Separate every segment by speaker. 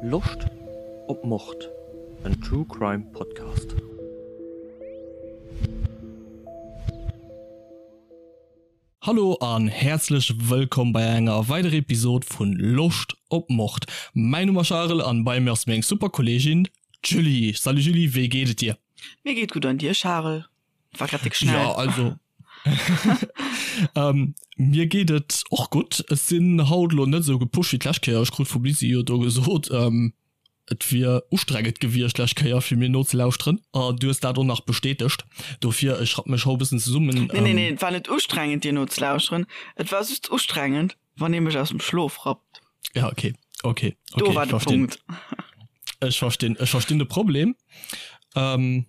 Speaker 1: Loscht op Mord? En True Crime Podcast. Hallo an häerzlech wëllkomm bei enger weiderer Episode vun Loscht op Mord. Mäin Numm ass Charel an bei mir ass meng super Kollegin d'Julie. Salut Julie, wéi geet et dir?
Speaker 2: Mir geet gutt an dir Charel? War grad déck schnell.
Speaker 1: Ja, also ähm, mir geet et och gutt. Ech sinn haut lo net esou gepusht wéi d'lescht Kéier. Ech krut vum Lisi jo do gesot, ähm, et wier ustrengend gewiescht d'lescht Kéier fir mir nozelauschteren. An du hues dat och nach bestätegt. Dofir, ech rapp mech haut e bëssen zesummen.
Speaker 2: Nee, nee, nee, et war net ustrengend dir nozelauschteren. Et war just ustrengend, wann ee mech aus dem Schlof rappt.
Speaker 1: Ja, okay, okay,
Speaker 2: okay,
Speaker 1: Do
Speaker 2: war
Speaker 1: ech
Speaker 2: de
Speaker 1: verstinn.
Speaker 2: Punkt.
Speaker 1: Ech verstinn, ech verstinn de Problem. Ähm,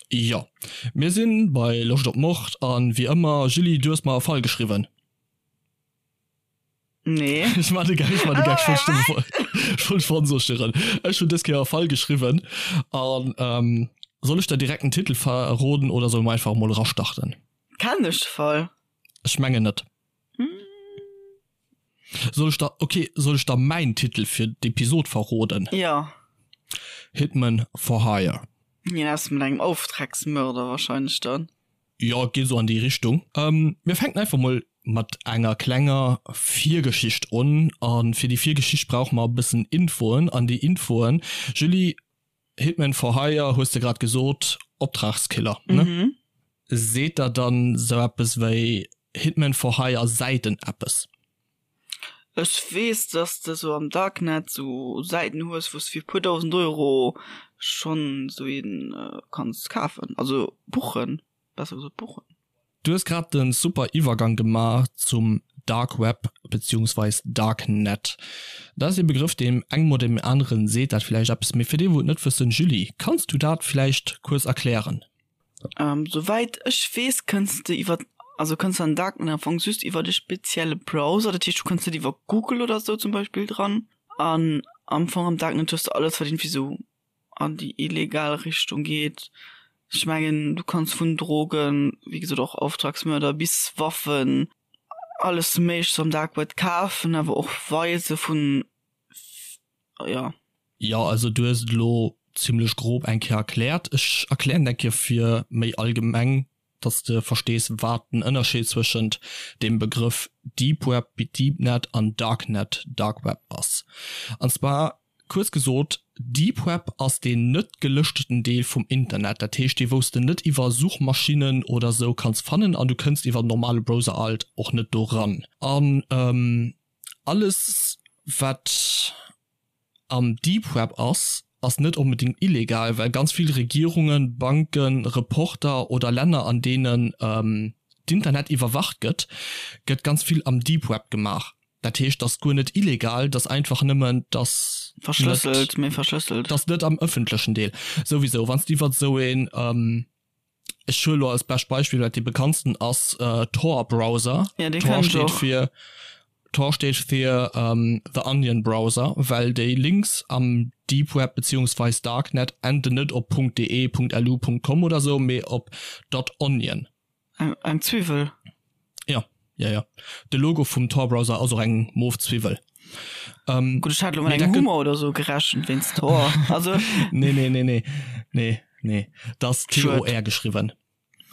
Speaker 1: Jo, mir sinn bei Loscht op Mord an wéi ëmmer, Julie, du hues mer e Fall geschriwwen.
Speaker 2: Nee.
Speaker 1: Ech man de Gag, ech man de Gag, ech wollt ech wollt verunsécheren. Ech hunn dës Kéier e Fall geschriwwen an ähm, soll ech der direkt den Titel verroden oder solle mer einfach emol erastarten?
Speaker 2: Kennen ech de Fall?
Speaker 1: Ech mengen net. Soll ech der, okay, soll ech der mäin Titel fir d'Episod verroden?
Speaker 2: Jo.
Speaker 1: Hitman for Hire.
Speaker 2: Hien ass mat engem Auftragsmörder wahrscheinlech dann.
Speaker 1: Jo, et geet esou an déi Richtung. Mir fänken einfach mol mat enger klenger Virgeschicht un. A fir déi Virgeschicht brauche mer e bëssen Infoen. An déi Infoen, Julie, Hitman for Hire hues de grad gesot, Optragskiller, ne?
Speaker 2: Mhm.
Speaker 1: Seet der dann sou eppes wéi Hitman for Hire Säiten eppes?
Speaker 2: Ech weess, dass de sou am Darknet sou Säiten hues, wou s de fir puer dausend Euro schonn sou een kanns kafen, also buchen, besser gesot buchen.
Speaker 1: Du hues grad den super Iwwergang gemaach zum Dark Web beziehungsweis Darknet. Dat ass ee Begrëff deem engem oder deem aneren seet dat villäicht eppes, mee fir déi wou et net wëssen, Julie, kanns du dat villäicht kuerz erklären?
Speaker 2: Souwäit ech weess kënns de iwwer, also kënns de an den Darknet am Fong just iwwert e spezielle Browser, dat heescht du kënns net iwwer Google oder sou zum Beispill dran. An am Fong am Darknet hues de alles wat iergendwéi sou an déi illegal Richtung geet. Ech mengen du kanns vun Drogen, wéi gesot och Auftragsmörder bis Waffen, alles méiglechst am Dark Web kafen, awer och weise vun, jo.
Speaker 1: Jo, also du hues et elo zimlech grob eng Kéier erkläert. Ech erklären et eng Kéier fir méi allgemeng, dass de verstees wat den Ënnerscheed zwëschent dem Begrëff Deep Web, Deepnet an Darknet, Dark Web ass. An zwar kuerz gesot, Deep Web ass deen net gelëschteten Deel vum Internet, dat heescht dee wous de net iwwer Suchmaschinnen oder sou kanns fannen an du kënns iwwer en normale Browser alt och net do ran. An alles wat am Deep Web ass, ass net onbedéngt illegal, well ganz vill Regierungen, Banken, Reporter oder Länner an deenen d'Internet iwwerwacht gëtt, gëtt ganz vill am Deep Web gemaach. Dat heescht, dat ass guer net illegal, dat ass einfach nëmmen, dass net,
Speaker 2: Verschlësselt, méi verschlësselt.
Speaker 1: dass net am ëffentlechen Deel. Souwisou, wann s de iwwert esou een, Ech huele lo als bescht Beispill, wat dee bekanntsten ass, Tor Browser.
Speaker 2: Ja, dee
Speaker 1: Tor
Speaker 2: kenn ech
Speaker 1: steet
Speaker 2: och.
Speaker 1: fir Tor steet fir The Onion Browser, well déi Links am Deep Web beziehungsweis Darknet enden net op .de, .lu, .com oder sou, mee op .onion.
Speaker 2: Eng, eng Zwiwwel.
Speaker 1: Ja, ja, ja. De Logo vum Tor Browser ass och eng mof Zwiwwel.
Speaker 2: Ähm, Gutt, ech hat lo mat engem Hummer oder sou gerechent wéinst Tor.
Speaker 1: Also. Nee, nee, nee, nee. Nee, nee. Dat ass T-O-R geschriwwen.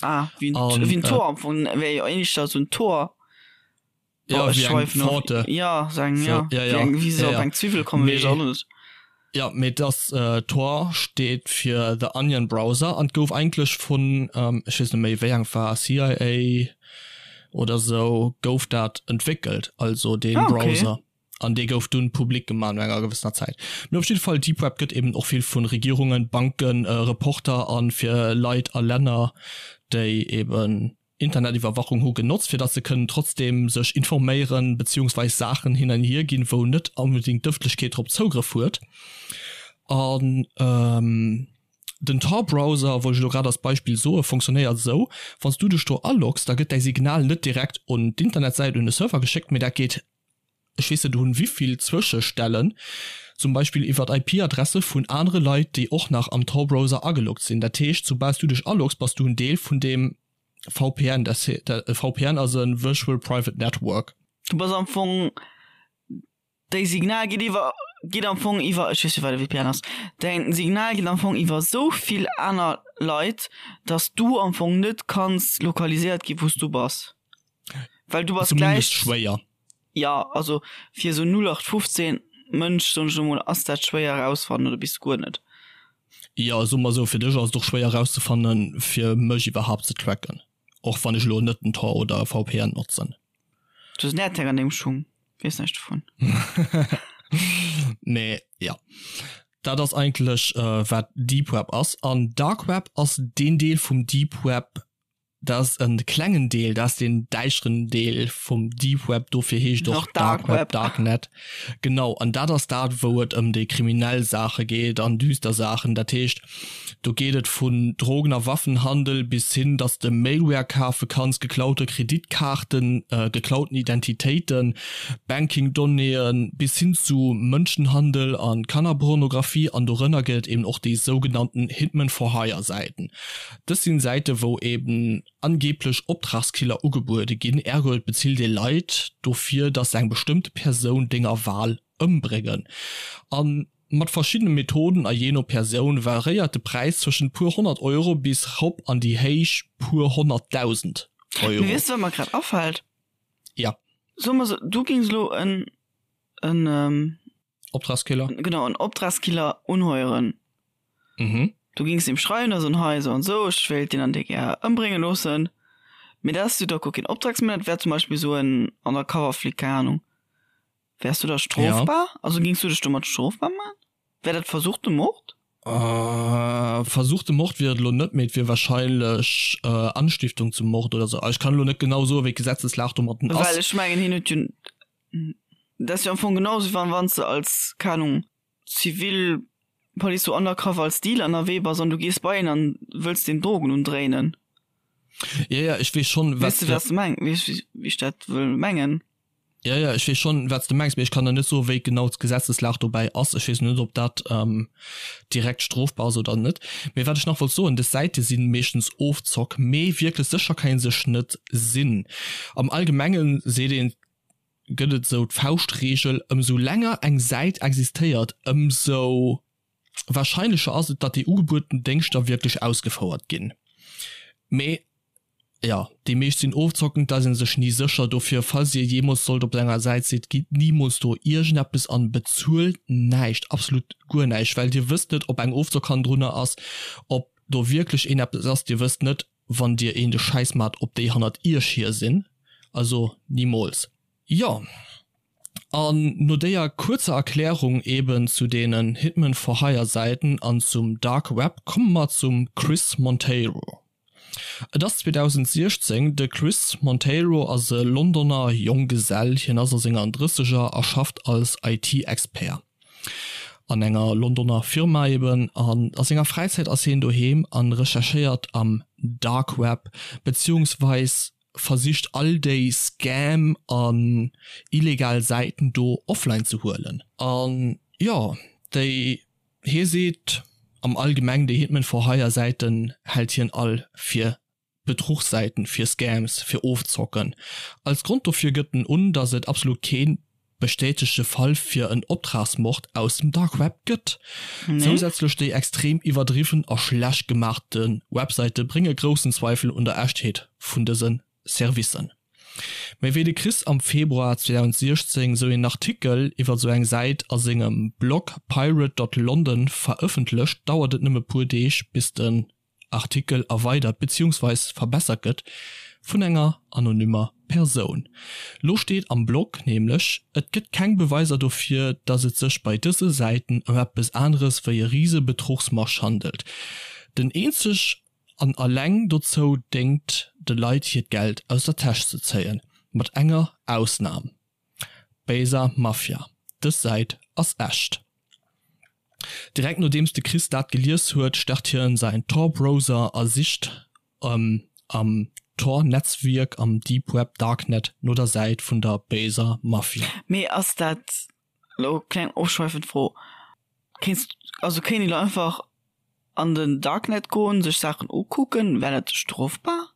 Speaker 2: Ah, wéi en, wéi en Tor am Fong, wär jo éischter sou en Tor.
Speaker 1: Ja, oh, wéi eng Pforte.
Speaker 2: Ja, so eng, ja. So, ja, ja. Wéi eng, wéi se ja, op eng Zwiwwel kommen, weess ech och net.
Speaker 1: Ja, mee das äh, Tor steet fir The Onion Browser an gouf eigentlech vun, ähm, ech weess net méi wéi eng war, CIA oder sou, gouf dat entwéckelt, also dee
Speaker 2: ah, okay.
Speaker 1: Browser. An dee gouf dunn public gemaach no enger gewëssener Zäit. Mee op jidde Fall, Deep Web gëtt eben och vill vun Regierungen, Banken, äh, Reporter an fir Leit a Länner, déi eben Internetiwwerwachung hu genotzt, fir datt se kënnen trotzdeem sech informéieren beziehungsweis Saachen hin an hier ginn, wou net onbedéngt d'Ëffentlechkeet drop Zougrëff huet. An den Tor-Browser, wollt ech elo grad als Beispill soen, fonctionnéiert esou, Wann s du dech do aloggs, da gëtt däi Signal net direkt un d'Internetsäit, un de Server geschéckt, mee dat geet ech weess net un wivill Zwëschestellen, zum Beispill iwwert IP-Adresse vun anere Leit, déi och nach am Tor-Browser ageloggt sinn. Dat heescht, soubal s du dech aloggs, bass du en Deel vun deem VPN. Dat e VPN ass e Virtual Private Network.
Speaker 2: Du bass am Fong, déi Signal geet iwwer. geet am Fong iwwer, ech weess net wat e VPN ass, däin Signal geet am Fong iwwer esou vill aner Leit, dass du am Fong net kanns lokaliséiert gi wou s du bass. Well du bass
Speaker 1: Zumindest gläich, schwéier.
Speaker 2: jo, also fir esou 0815 Mënsch, soen ech elo mol, ass dat schwéier erausfannen oder bis guer net.
Speaker 1: Jo, soe mer esou, fir dech ass et och schwéier erauszefannen, fir mech iwwerhaapt ze tracken, och wann ech elo net den Tor oder e VPN notzen.
Speaker 2: Du hues en AirTag an dengem Schung, weess näischt dovun.
Speaker 1: Mee jo, dat ass eigentlech wat Deep Web ass. An Dark Web ass deen Deel vum Deep Web, dat ass e klengen Deel, dat ass deen däischteren Deel vum Deep Web, dofir heescht och Dark Web, Darknet. Genau, an dat ass dat wou et ëm déi kriminell Saache geet an düster Saachen. Dat heescht, Do geet et vun Drogen a Waffenhandel bis hin, dass de Malware kafe kanns, geklaute Kreditkaarten, geklauten Identitéiten, Banking-Donnéeën, bis hin zu Mënschenhandel a Kannerpornografie. An dorënner gëtt et eben och déi sougenannten Hitman-for-hire-Säiten. Dës sinn Säite wou eben angeeblech Optragskiller ugebuede ginn, ergo et bezilt ee Leit dofir, dass se eng bestëmmte Persoun denger Wahl ëmbréngen. An Mat verschiddene Methoden a jee no Persoun variéiert de Präis zwëschent puer 100 Euro bis rop an déi héich puer 100.000 Euro.
Speaker 2: Mee weess de wat mer grad afält?
Speaker 1: Ja.
Speaker 2: Soe mer sou, du gings elo en, en.
Speaker 1: Optragskiller?
Speaker 2: Genau, en Optragskiller unheueren.
Speaker 1: Mhm.
Speaker 2: Du gings him schreiwen a soen, hei sou an sou, ech wéilt deen an dee gär ëmbrénge loossen. Mee dat ass jo da guer keen Optragsmörder, dat wär zum Beispill sou en Undercover-Flic, keng Ahnung. Wärs du da strofbar? Ja. Also gings du dech domat strofbar man? Wär dat versuchte Mord?
Speaker 1: Äh, versuchte Mord wier et elo net, mee et wier wahrscheinlech äh, Anstiftung zum Mord oder sou. Ech kann elo net genau soen, wéi d'Gesetzeslag domatten
Speaker 2: ass. Well ech mengen, hien huet jo, dat ass jo am Fong genau sou, wann wann s de als, keng Ahnung, zivil Police sou undercover als Dealer ënnerwee bass an du gees bei een an wëlls deem Drogen undréinen.
Speaker 1: Ja, ja, ech weess schonn,
Speaker 2: wat. Weess de, wat s de meng, weess wéi ech dat wëll mengen?
Speaker 1: Ja, ja, ech weess schonn, wat s de mengs, mee ech kann der net soen, wéi genau d'Gesetzeslag dobäi ass. Ech weess net, ob dat direkt strofbar ass oder net. Mee wat ech nach wollt soen, Dës Säite si meeschtens Ofzock, mee wierklech sécher kann ee sech net sinn. Am Allgemenge seet een, gëtt et esou d'Fauschtreegel, Ëmsou länger eng Säit existéiert, ëmsou wahrscheinlecher ass et, datt déi ugebueden Déngschter wierklech ausgefouert ginn. Mee jo, déi meescht sinn ofzockend, da ass ee sech ni sécher. Dofir, falls dir jeemools sollt op enger Säit sidd, gitt nimools do iergendeppes an, bezuelt näischt, absolut guer näischt, well dir wësst net, ob eng Ofzock hannendrunner ass, ob do wierklech een eppes ass. Dir wësst net, wann dir een de Schäiss maacht, ob déi hannert iech hier sinn. Also nimools. Jo, an no déier kuerzer Erklärung eben zu deenen Hitman for Hire Säiten an zum Dark Web komme mer zum Chris Monteiro. Et ass 2016, de Chris Monteiro ass e Londoner Jonggesell, hien ass a senger Drësseger a schafft als IT-Expert an enger Londoner Firma eben. An a senger Fräizäit ass hien doheem an recherchéiert am Dark Web, beziehungsweis versicht all déi Scam an illegal Säiten do offline ze huelen. An jo, déi, hie seet am allgemeng, déi Hitman for Hire Säiten hält hien all fir Bedruchssäiten, fir Scams, fir Ofzocken. Als Grond dofir gëtt en un, datt et absolut keen bestätegte Fall fir en Optragsmord aus dem Dark Web gëtt. Zousätzlech déi extrem iwwerdriwwen a schlecht gemaachte Websäite brénge groussen Zweifel un der Echtheet vun dëse Servicen. Méi wéi de Chris am Februar 2016 sou een Artikel iwwer sou eng Säit a sengem Blog pirate dot london verëffentlecht, dauert et nëmme puer Deeg bis den Artikel erweidert beziehungsweis verbessert gëtt vun enger anonymer Persoun. Lo steet am Blog nämlech, et gëtt keng Beweiser dofir, datt et sech bei dëse Säiten ëm eppes aneres wéi e rise Betruchsmarsch handelt, den eenzeg an alleng dozou déngt, de Leit hiert Geld aus der Täsch ze zéien, mat enger Ausnam. Besa Mafia, Dës Säit ass echt. Direkt nodeems de Chris dat gelies huet, start hien säin Tor-Browser a sicht am Tor-Netzwierk am Deep Web Darknet no der Säit vun der Besa Mafia.
Speaker 2: Mee ass dat, lo kleng ofschweifend Fro, kéints, also kéint een lo einfach an den Darknet goen, sech Saachen ukucken, wär dat strofbar?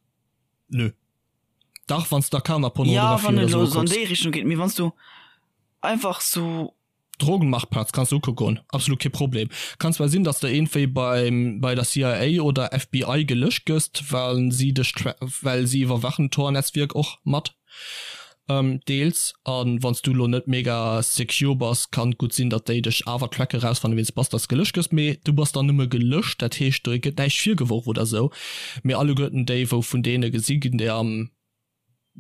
Speaker 1: Nö. Dach, wann s de
Speaker 2: Kannerpornografie ja, wann oder sou kucks. An déi Richtung geet, mee wann s du einfach sou.
Speaker 1: Drogenmarktplatz kanns de ukucke goen, absolut kee Problem. Kann zwar sinn, dass de iergendwéi beim bei der CIA oder FBI gelëscht gëss, well si dech well si iwwerwachen d'Tor-Netzwierk och mat deels. A wann s du elo net mega secure bass, kann et gutt sinn, datt déi dech awer tracken, erausfannen, wien s bass, dass gelëscht gëss. Mee du bass dann nëmme gelëscht, dat heescht do gëtt näischt virgeworf oder sou. Mee alleguerten déi, wou vun deene gesi ginn, déi am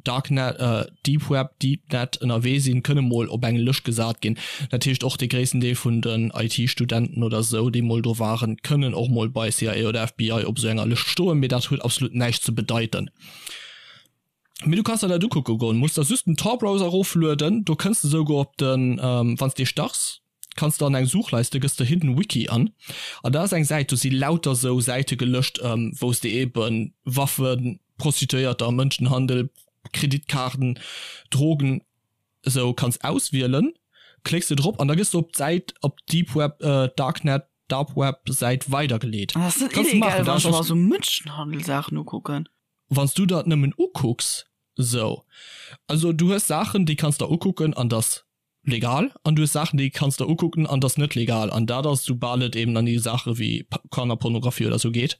Speaker 1: Darknet, Deep Web, Deepnet ënnerwee sinn, kënne mol op eng Lëscht gesat ginn. Dat heescht och dee gréissten Deel vun den IT-Studenten oder sou, déi mol do waren, kënnen och mol bei CIA oder FBI op esou enger Lëscht stoen, mee dat huet absolut näischt ze bedeiten. Mee du kanns der dat ukucke goen, muss der just den Tor-Browser eroflueden, do kënns de souguer op den, wann s de starts, kanns de an eng Suchleiste, gëss de Hidden Wiki an, an da ass eng Säit, do si lauter sou Säite gelëscht, wou s de eben Waffen, Prostituéierter, Mënschenhandel, Kreditkaarten, Drogen esou kanns auswielen. Klécks de drop an da gëss de op d'Säit, op d'Deep Web, Darknet, Dark Web Säit weidergeleet.
Speaker 2: An ass net illegal, wann ech mer sou Mënschenhandel-Saachen ukucken?
Speaker 1: Wann s du der et nëmmen ukucks, sou. Also du hues Saachen, déi kanns der ukucken an dass legal an du hues Saachen déi kanns der ukucken an dass net legal an dat ass soubal et eben an déi Saache wéi Kannerpornografie oder sou geet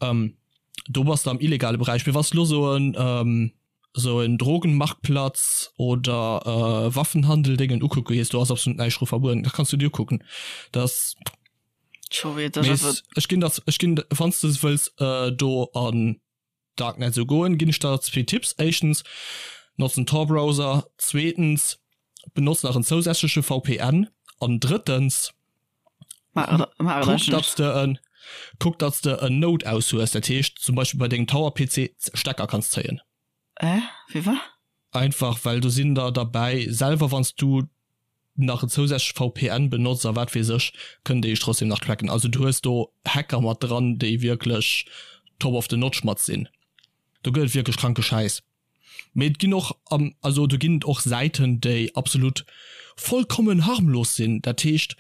Speaker 1: do bass de am illegale Beräich. Mee wann s de lo sou en sou en Drogenmarktplatz oder Waffenhandel Déngen ukucke gees, do ass absolut näischt dru verbueden, dat kanns du dir ukucken. Dat ass ech ginn der ech ginn wann s de wëlls do an Darknet sou goen, ginn ech der zwee Tipps, éischtens, notz den Tor Browser, zweetens, benotz nach en zousätzleche VPN an drëttens, kuck datts de en kuck datts de en Node aus hues, dat heescht zum Beispill bei dengem Tower PC Stecker kanns zéien.
Speaker 2: Äh, wéi wa?
Speaker 1: Einfach well do sinn der derbäi, selwer wanns du nach en zousätzleche VPN benotz a wat weess ech, kënnen déi dech trotzdem nach tracken. Also du hues do Hacker mat dran, déi wierklech top of the notch mat sinn. Do gëtt et wierklech kranke Schäiss. Mee et ginn och, also do ginn et och Säiten, déi absolut vollkommen harmlos sinn. Dat heescht,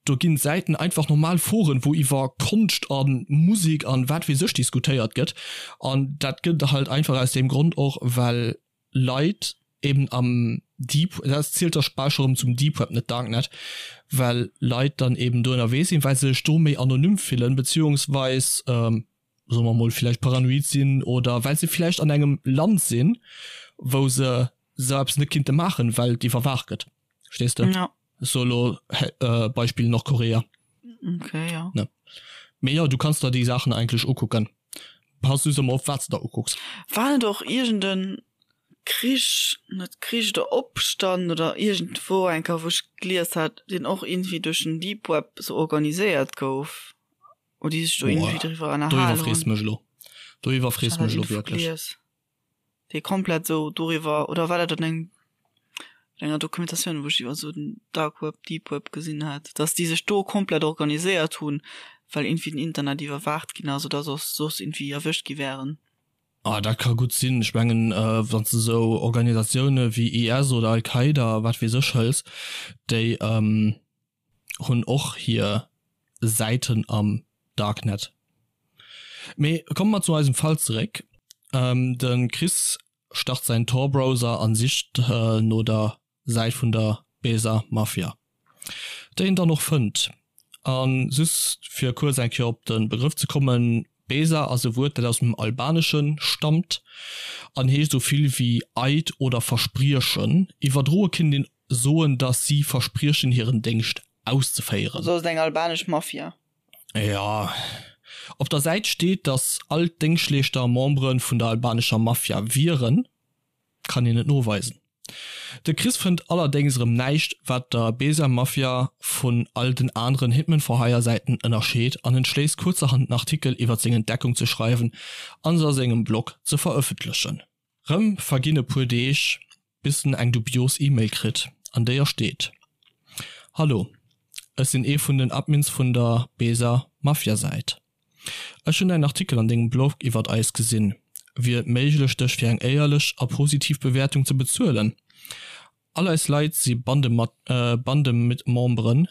Speaker 1: do ginn Säiten einfach normal Foren, wou iwwer Konscht a Musek an wat weess ech diskutéiert gëtt. An dat gëtt halt einfach aus deem Grond och, well Leit eben am Deep, dat zielt da bal scho rëm zum Deep Web, net Darknet, well Leit dann eben do ënnerwee sinn, well se sech do méi anonym fillen, beziehungsweis, soe mer mol, villäicht paranoid sinn oder well se villäicht an engem Land sinn, wou se esou eppes net kinnte maachen, well et iwwerwaacht gëtt. Verstees de?
Speaker 2: Ja.
Speaker 1: Ech soe lo Beispill Nordkorea.
Speaker 2: Okay, ja.
Speaker 1: Ne. Mee jo, du kanns der déi Saachen eigentlech ukucken. Pass just ëmmer op, wat s de der ukucks.
Speaker 2: War net och iergend en Krich, net Krich oder Opstand oder iergendwou eng Kéier, wou ech gelies hat, deen och iergendwéi duerch den Deep Web sou organiséiert gouf, oder déi sech do iergendwéi driwwer
Speaker 1: ënnerhalen hunn? Do iwwerfrees de mech elo. Do iwwerfrees de mech elo wierklech.
Speaker 2: Dee komplett sou doriwwer, oder war dat an engem enger Dokumentatioun, wou ech iwwer sou den Dark Web, Deep Web gesinn hat, dass déi sech do komplett organiséiert hunn, well iergendwéi den Internet iwwerwaacht ginn ass oder soss soss iergendwéi erwëscht gi wären.
Speaker 1: Ah, dat ka gutt sinn. Ech mengen, wann s de sou Organisatioune wéi IS oder Al-Qaida, wat weess ech, hëls, déi hunn och hir Säiten am Darknet. Mee komme mer zu eisem Fall zeréck. De Chris start säin Tor-Browser an sicht no der Säit vun der Besa Mafia, déi en dann och fënnt. A just fir kuerz eng Kéier op de Begrëff ze kommen, Besa ass e Wuert, dat aus dem Albanesche stammt an heescht esou vill wéi Eid oder Verspriechen. Iwwerdroe kinnt een soen, datt si verspriechen hiren Déngscht auszeféieren.
Speaker 2: Also ass et eng albanesch Mafia.
Speaker 1: Jo. Op der Säit steet, datt all d'Déngschtleeschter Membere vun der albanescher Mafia wieren. Kann een net noweisen. De Chris fënnt allerdéngs erëm näischt, wat der Besa Mafia vun all den aneren Hitman for Hire Säiten ënnerscheet an entschléisst kuerzerhand en Artikel iwwert seng Entdeckung ze schreiwen an se a sengem Blog ze verëffentlechen. Rëm verginn e puer Deeg, bis en eng dubios E-Mail kritt, an déier steet, Hallo, ech sinn ee vun den Admins vun der Besa Mafia Säit. Ech hunn däin Artikel an dengem Blog iwwert eis gesinn. Wier et méiglech dech fir eng éierlech a positiv Bewäertung ze bezuelen? All eis Leit si Bandemitmemberen.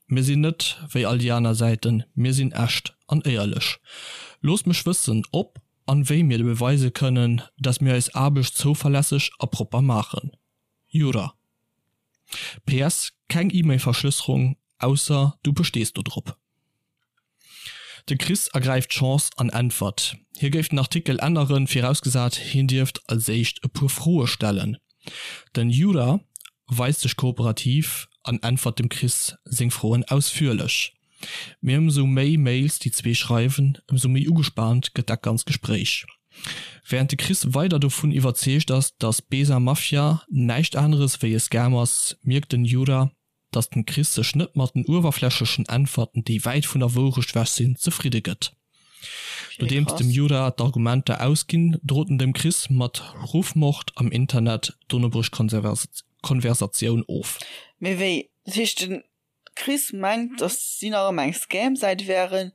Speaker 1: Mir sinn net wéi all déi aner Säiten, mir sinn echt an éierlech. Looss mech wëssen ob an wéi mir beweise kënnen, dass mir eis Aarbecht zouverlässeg a propper maachen. Jura. PS, Keng E-Mail-Verschlësserung, ausser du bestees do drop. De Chris ergräift d'Chance an äntwert, hie géif den Artikel änneren, virausgesat hien dierft als éischt e puer Froe stellen. Den Jura weist sech kooperativ an äntwert dem Chris seng Froen ausführlech. Mee ëmsou méi Mails déi zwee schreiwen, ëmsou méi ugespaant gëtt dat ganz Gespréich. Wärend de Chris weider dovun iwwerzeegt ass, datt Besa Mafia näischt aneres wéi e Scam ass, mierkt den Jura, datt den Chris sech net mat den uewerflächlechen Äntwerten, déi wäit vun der Wourecht wech sinn, zefridde gëtt. Nodeems dem Jura d'Argumenter ausginn, drot en dem Chris mat Ruffmord am Internet, dono brécht d'Konversatioun of.
Speaker 2: Mee wéi? Dat heescht den Chris mengt dass si nach ëmmer eng Scam-Säit wären,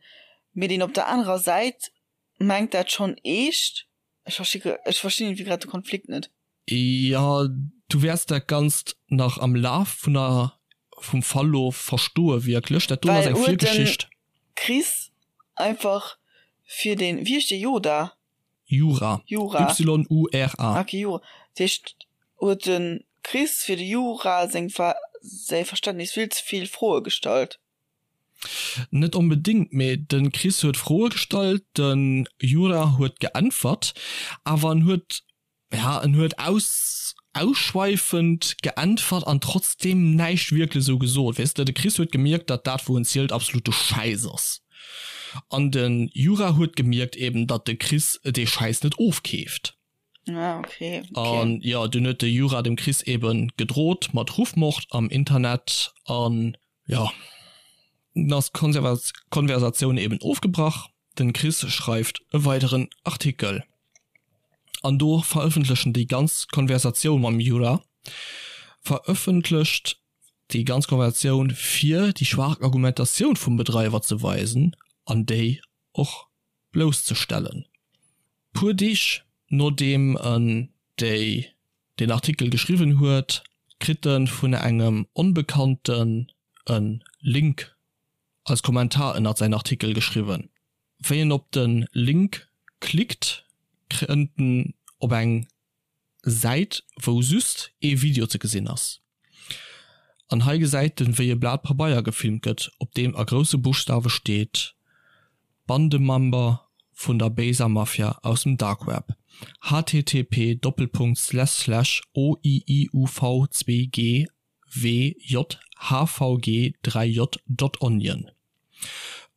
Speaker 2: mee deen op der anerer Säit mengt dat schonn eescht? Ech versti ech verstinn iergendwéi grad de Konflikt net.
Speaker 1: Jo, du wäerts dat Ganzt nach am Laf vun der vum Verlof verstoe wierklech. Dat do ass
Speaker 2: eng Virgeschicht. Chris einfach fir den, wéi heescht dee, Yoda?
Speaker 1: Jura. Jura. Y-U-R-A.
Speaker 2: Ok, Jura. Dat heescht, huet de Chris fir de Jura seng säi Verständnis vill ze vill Froe gestallt?
Speaker 1: Net onbedéngt, mee de Chris huet Froe gestallt, de Jura huet geäntwert, awer en huet Ja, en huet aus ausschweifend geäntwert an trotzdem näischt wierklech esou gesot. Weess de, de Chris huet gemierkt, datt dat wou en zielt absolute Schäiss ass. An de Jura huet gemierkt eben, datt de Chris dee Schäiss net ofkeeft.
Speaker 2: Ah, okay,
Speaker 1: okay. An jo, dunn huet de Jura dem Chris eben gedrot mat Ruffmord am Internet an jo, dunn ass d'Konversatioun eben ofgebrach. Den Chris schreift e weideren Artikel an do verëffentlechen déi ganz Konversatioun mam Jura, verëffentlecht déi ganz Konversatioun fir déi schwaach Argumentatioun vum Bedreiwer ze weisen an déi och blousszestellen. Puer Deeg nodeem en déi deen Artikel geschriwwen huet, kritt en vun engem Onbekannten e Link als Kommentar ënnert säin Artikel geschriwwen. Wéi en op de Link klickt, kënnt en op eng Säit wou just ee Video ze gesinn ass. An hei gesäit en wéi e Blat Pabeier gefilmt gëtt, op deem a grousse Buschtawe steet, Bandemember vun der béiser Mafia aus dem Darkweb, http Doppelpunkt Slash Slash oiiuv2g WJHVG 3 J dot onion.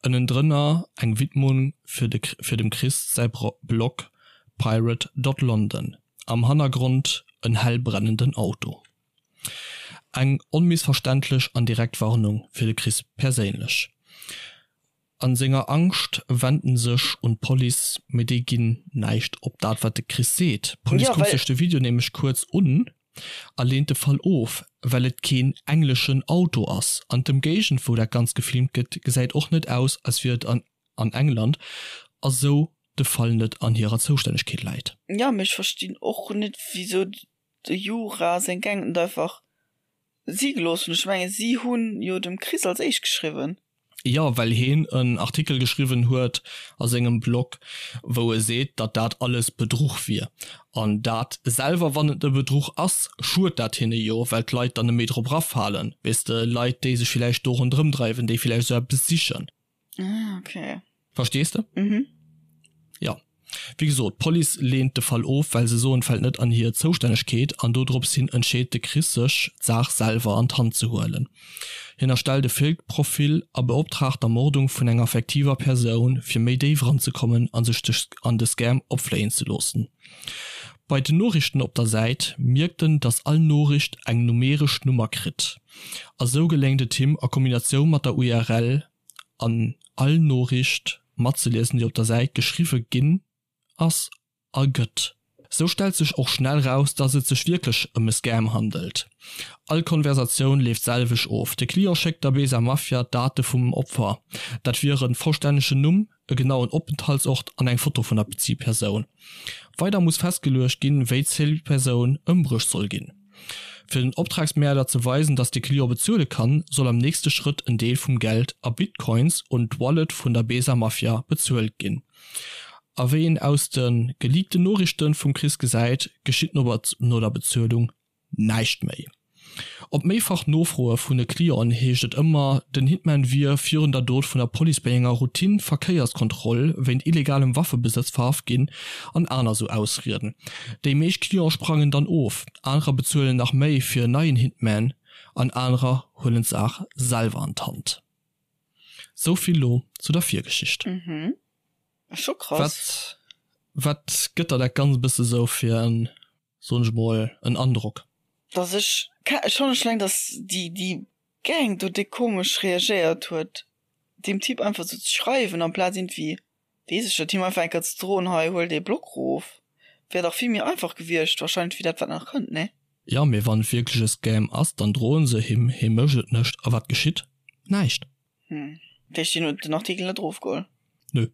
Speaker 1: Ënnendrënner eng Widmung fir de fir dem Chris säi Blog pirate dot london. Am Hannergrond en hell brennenden Auto. Eng onmissverständlech an direkt Warnung fir de Chris perséinlech. An senger Angscht wennt en sech un d'Police, mee déi ginn näischt op dat wat de Chris seet. D'Police kuckt sech de Video nämlech kuerz un a leent de Fall of, well et keen engleschen Auto ass an d'Ëmgéigend wou dat Ganzt gefilmt gëtt gesäit och net aus als wier et an England a sou de Fall net an hirer Zoustännegkeet läit.
Speaker 2: Jo, mee ech verstinn och net wisou de Jura seng Gang net einfach si gelooss hunn. Ech mengen si hunn jo dem Chris als éischt geschriwwen.
Speaker 1: Jo, well heen en Artikel geschriwwen huet a sengem Blog, wou e seet, datt dat alles Bedruch wier. An dat selwer, wann et e Bedruch ass, schued dat hinne jo, well d'Leit dann net méi drop erafalen, weess de, Leit, déi sech villäicht do ronderëm dreiwen, déi villäicht esou eppes sichen.
Speaker 2: Ah, okay.
Speaker 1: Verstees de? Mhm. Ja. Wéi gesot, d'Police leent de Fall of, well se soen, et fält net an hir Zoustännegkeet an dodrops hin entscheet de Chris sech, d'Saach selwer an d'Hand ze huelen. Hien erstellt e Fake-Profil a beoptraagt d'Ermordung vun enger fiktiver Persoun, fir méi déif eranzekommen a sech an de Scam opfléien ze loossen. Bei den Noriichten op der Säit mierkt en, dass all Noriicht eng numeresch Nummer kritt a sou geléngt et him a Kombinatioun mat der URL an all Noriicht matzeliesen déi op der Säit geschriwwe ginn ass a gëtt. Sou stellt sech och schnell raus, dass et sech wierklech ëm e Scam handelt. All Konversatioun leeft d'selwecht of, de Client schéckt der Besa Mafia d'Date vum Opfer, dat wier en vollstännegen Numm, e genauen Openthaltsort an eng Foto vun der Zilpersoun. Weider muss festgeluecht ginn, wéi d'Zilpersoun ëmbruecht soll ginn. Fir den Optragsmäerder ze weisen, dass de Client bezuele kann, soll am nächste Schrëtt en Deel vum Geld a Bitcoins un d'Wallet vun der Besa Mafia bezuelt ginn. A wéi een aus de geleakten Noriichte vum Chris gesäit, geschitt no der Bezuelung näischt méi. Op méifach Nofroe vun de Clienten heescht et ëmmer, den Hitman wier virun der Dot vun der Police bei enger Routine-Verkéierskontroll wéint illegalem Waffebesëtz verhaft ginn an aner sou Ausrieden. Déi meescht Cliente sprangen dann of, anerer bezuelen nach méi fir en neien Hitman an anerer huelen d'Saach selwer an d'Hand. Sou vill lo zu der Virgeschicht.
Speaker 2: Mhm. Scho
Speaker 1: krass. Wat, wat gëtt der dat Ganzt e bësse sou fir en, soen ech mol, en Androck?
Speaker 2: Dass ech, schonn ech eleng, dass déi, déi Gang do déck komesch reagéiert huet, deem Typ einfach sou ze schreiwen, amplaz iergendwéi, weess ech net, him einfach eng Kéier ze droen, hei huel dee Blog erof, wär dach vill méi einfach gewiescht wahrscheinlech wéi dat wat nach kënnt, nee?
Speaker 1: Jo, mee wann et wierklech e Scam ass, dann droen se him, hie mécht et net, a wat geschitt? Näischt.
Speaker 2: Hm, dat heescht hien huet den Artikel net erofgeholl?
Speaker 1: Nö.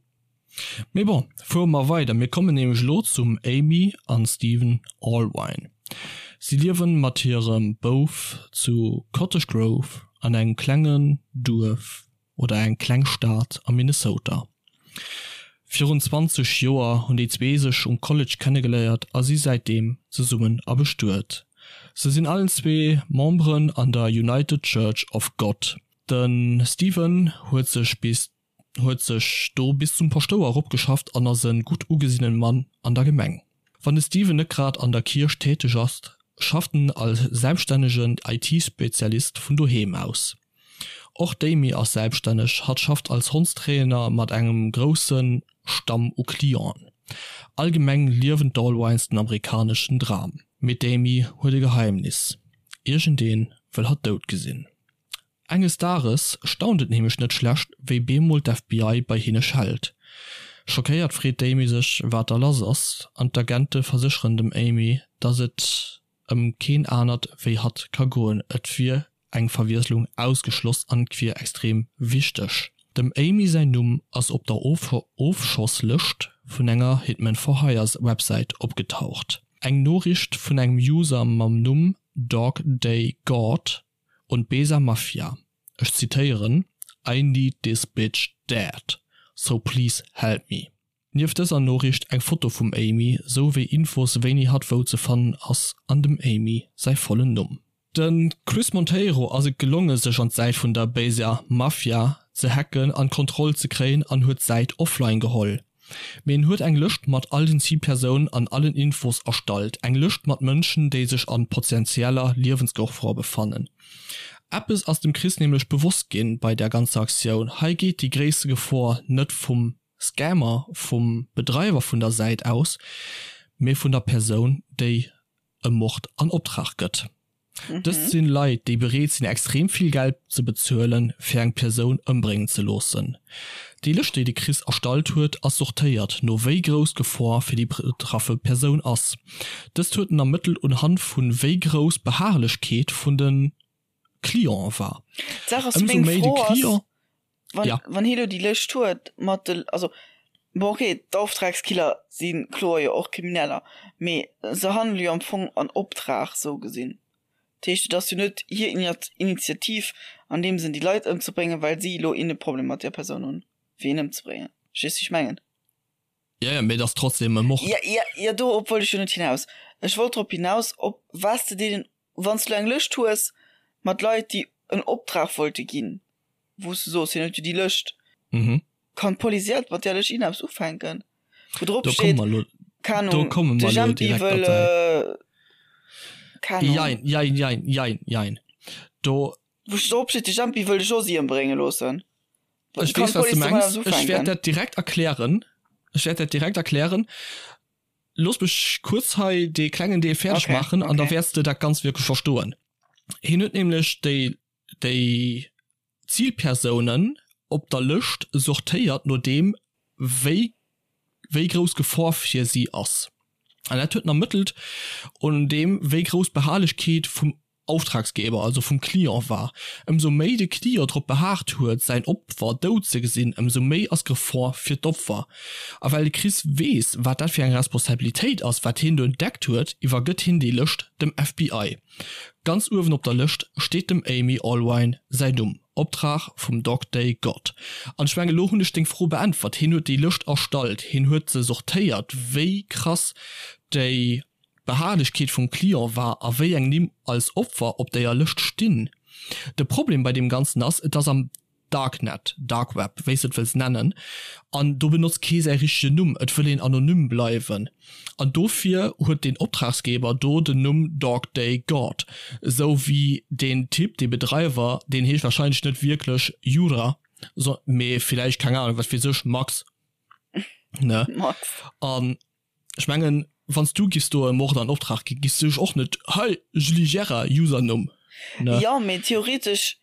Speaker 1: Mee bon, fuere mer weider, mir kommen nämlech elo zum Amy an Steven Allwine. Si liewen mat hirem Bouf zu Cottage Grove an engem klengen Duerf oder eng kleng Stad am Minnesota. Virun 20 Joer hunn déi zwee sech um College kennegeléiert a si säitdeem zesummen a bestuet. Se sinn allen zwee Memberen an der United Church of God. De Steven huet sech bis huet sech do bis zum Paschtouer eropgeschafft an ass e gutt ugesinnen Mann an der Gemeng. Wann de Steven net grad an der Kierch täteg ass, schafft en als selbststännegen IT-Spezialist vun doheem aus. Och d'Amy ass selbststänneg, hatt schafft als Hondstrainer mat engem grousse Stamm u Clienten. Allgemeng liewen d'Allwines den amerikaneschen Dram. Mee d'Amy huet e Geheimnis, Iergendee wëll hatt dout gesinn. Enges Dages staunt et nämlech net schlecht, wéi bemol d'FBI bei hinne schellt. Schockéiert freet d'Amy sech, wat da lass ass, an d'Agente versécheren dem Amy, dass et ëm keen anert wéi hatt ka goen, et wier eng Verwiesslung ausgeschloss an et wier extrem wichteg. Dem Amy säin Numm ass op der Ofschosslëscht vun enger Hitman for Hire Websäit opgetaucht. Eng Noriicht vun engem User mam Numm Dog Day God und Besa Mafia, ech zitéieren, I need this bitch dead, so please help me. Nieft dëser Noriicht eng Foto vum Amy, sou wéi Infos wéini hatt wou ze fannen ass an dem Amy säi vollen Numm. De Chris Monteiro ass et gelonge sech an d'Säit vun der Béiser Mafia ze hacken an d'Kontroll ze kréien an huet d'Säit offline geholl. Mee en huet eng Lëscht mat all den Zilpersounen an allen Infos erstallt, eng Lëscht mat Mënschen, déi sech an potentieller Liewensgefor befannen. Eppes ass dem Chris nämlech bewosst ginn bei der ganzer Aktioun, hei geet déi gréisste Gefor net vum Scammer, vum Bedreiwer vun der Säit aus, mee vun der Persoun, déi e Mord an Optrag gëtt. Dëst sinn Leit, déi bereet sinn extrem vill Geld ze bezuelen, fir eng Persoun ëmbréngen ze loossen. Déi Lëscht, déi de Chris erstallt huet, ass sortéiert no wéi grouss d'Gefor fir déi betraffe Persoun ass. Dëst huet en ermëttelt unhand vun wéi grouss d'Beharrlechkeet vun de Clienten war.
Speaker 2: D'Saach ass,
Speaker 1: Ëmsou
Speaker 2: meng
Speaker 1: méi de
Speaker 2: Fro ass,
Speaker 1: Client.
Speaker 2: wann,
Speaker 1: Ja.
Speaker 2: wann hie lo déi Lëscht huet mat de, also bon okay, d'Auftragskiller si kloer jo och Krimineller, mee se handele jo am Fong an Optrag sou gesinn. Dat heescht, et ass jo net hir Initiativ an deem Sënn déi Leit ëmzebréngen, well si elo een e Problem mat där Persoun hunn, fir een ëmzebréngen. Verstees du wéi ech mengen?
Speaker 1: Ja, ja, mee et ass trotzdem e Mord.
Speaker 2: Ja, ja, ja, dorop wollt ech jo net hinaus. Ech wollt drop hinaus, ob wat s de deenen, wann s du elo eng Lëscht hues mat Leit, déi en Optrag wollte ginn, wou s du soos, hien huet jo déi Lëscht,
Speaker 1: Mhm.
Speaker 2: kann d'Police iert mat där Lëscht iergendeppes ufänken, wou drop
Speaker 1: Do komme
Speaker 2: steet,
Speaker 1: mer elo,
Speaker 2: keng
Speaker 1: do
Speaker 2: Ahnung,
Speaker 1: komme
Speaker 2: de
Speaker 1: mer elo
Speaker 2: Jempi
Speaker 1: direkt
Speaker 2: wëll,
Speaker 1: derbäi.
Speaker 2: keng Ahnung.
Speaker 1: Jein, jein, jein, jein, jein. Do.
Speaker 2: Wou drop steet, de Jempi wëll de Josy ëmbrénge loossen.
Speaker 1: Ech
Speaker 2: Kann
Speaker 1: weess, wat s du
Speaker 2: d'Police domat
Speaker 1: mengs.
Speaker 2: eppes
Speaker 1: Ech wäert
Speaker 2: ufänken?
Speaker 1: dat direkt erklären. Ech wäert dat direkt erklären. Looss mech kuerz hei dee klengen Deel fäerdeg
Speaker 2: Okay,
Speaker 1: maachen an da
Speaker 2: okay.
Speaker 1: wäerts de dat Ganzt wierklech verstoen. Hien huet nämlech déi, déi Zilpersounen op der Lëscht sortéiert no deem, wéi wéi grouss d'Gefor fir si ass. An dat huet en ermëttelt un deem, wéi grouss d'Beharrlechkeet vum Auftragsgeber, also vum Client war. Ëmsou méi de Client drop behaart huet, säin Opfer dout ze gesinn, ëmsou méi ass d'Gefor fir d'Opfer. A well de Chris weess, wat dat fir eng Responsabilitéit ass, wat hien do entdeckt huet, iwwergëtt hien déi Lëscht dem FBI. Ganz uewen op der Lëscht steet dem Amy Allwine säin Numm, Optrag vum Dog Day God. An ech mengen, elo hunn ech deng Fro beäntwert. Hien huet déi Lëscht erstallt, hien huet se sortéiert, wéi krass déi. D'Beharrlechkeet vum Client war a wéi eng Nimm als Opfer op déier Lëscht stinn. De Problem bei deem Ganzen ass, et ass am Darknet, Dark Web, wéi s de et wëlls nennen, an do benotzt kee säi richtegen Numm, et wëll een anonym bleiwen an dofir huet deen Optragsgeber do den Numm Dog Day God, esou wéi deen Typ, dee Bedreiwer, deen heescht warscheinlech net wierklech Jura, mee villäicht, keng Ahnung, wat weess ech, Max, ne?
Speaker 2: Max.
Speaker 1: An Ech mengen, wann s du giffs do e Mord an Optrag ginn, giffs du dech och net, hei, Julie Gerard, Usernumm,
Speaker 2: ne? Jo, mee theoretesch,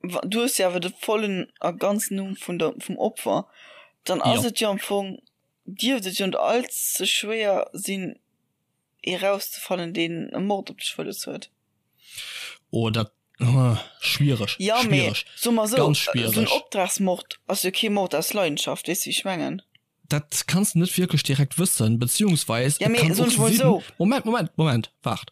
Speaker 2: wa, du hues jo awer de vollen a ganzen Numm vun der, vum Opfer, dann ass et jo am Fong, dierft et jo net all ze schwéier sinn, ee rauszefannen, deen e Mord op dech wëlles huet.
Speaker 1: Oh, dat, schwiereg,
Speaker 2: Jo, mee schwiereg, soe mer esou, ganz esou en schwiereg. Optragsmord ass jo kee Mord aus Leidenschaft, weess de, wéi ech mengen?
Speaker 1: Dat kanns de net wierklech direkt wëssen, beziehungsweis ja, et kann och sinn, so. Moment, Moment, Moment, waart.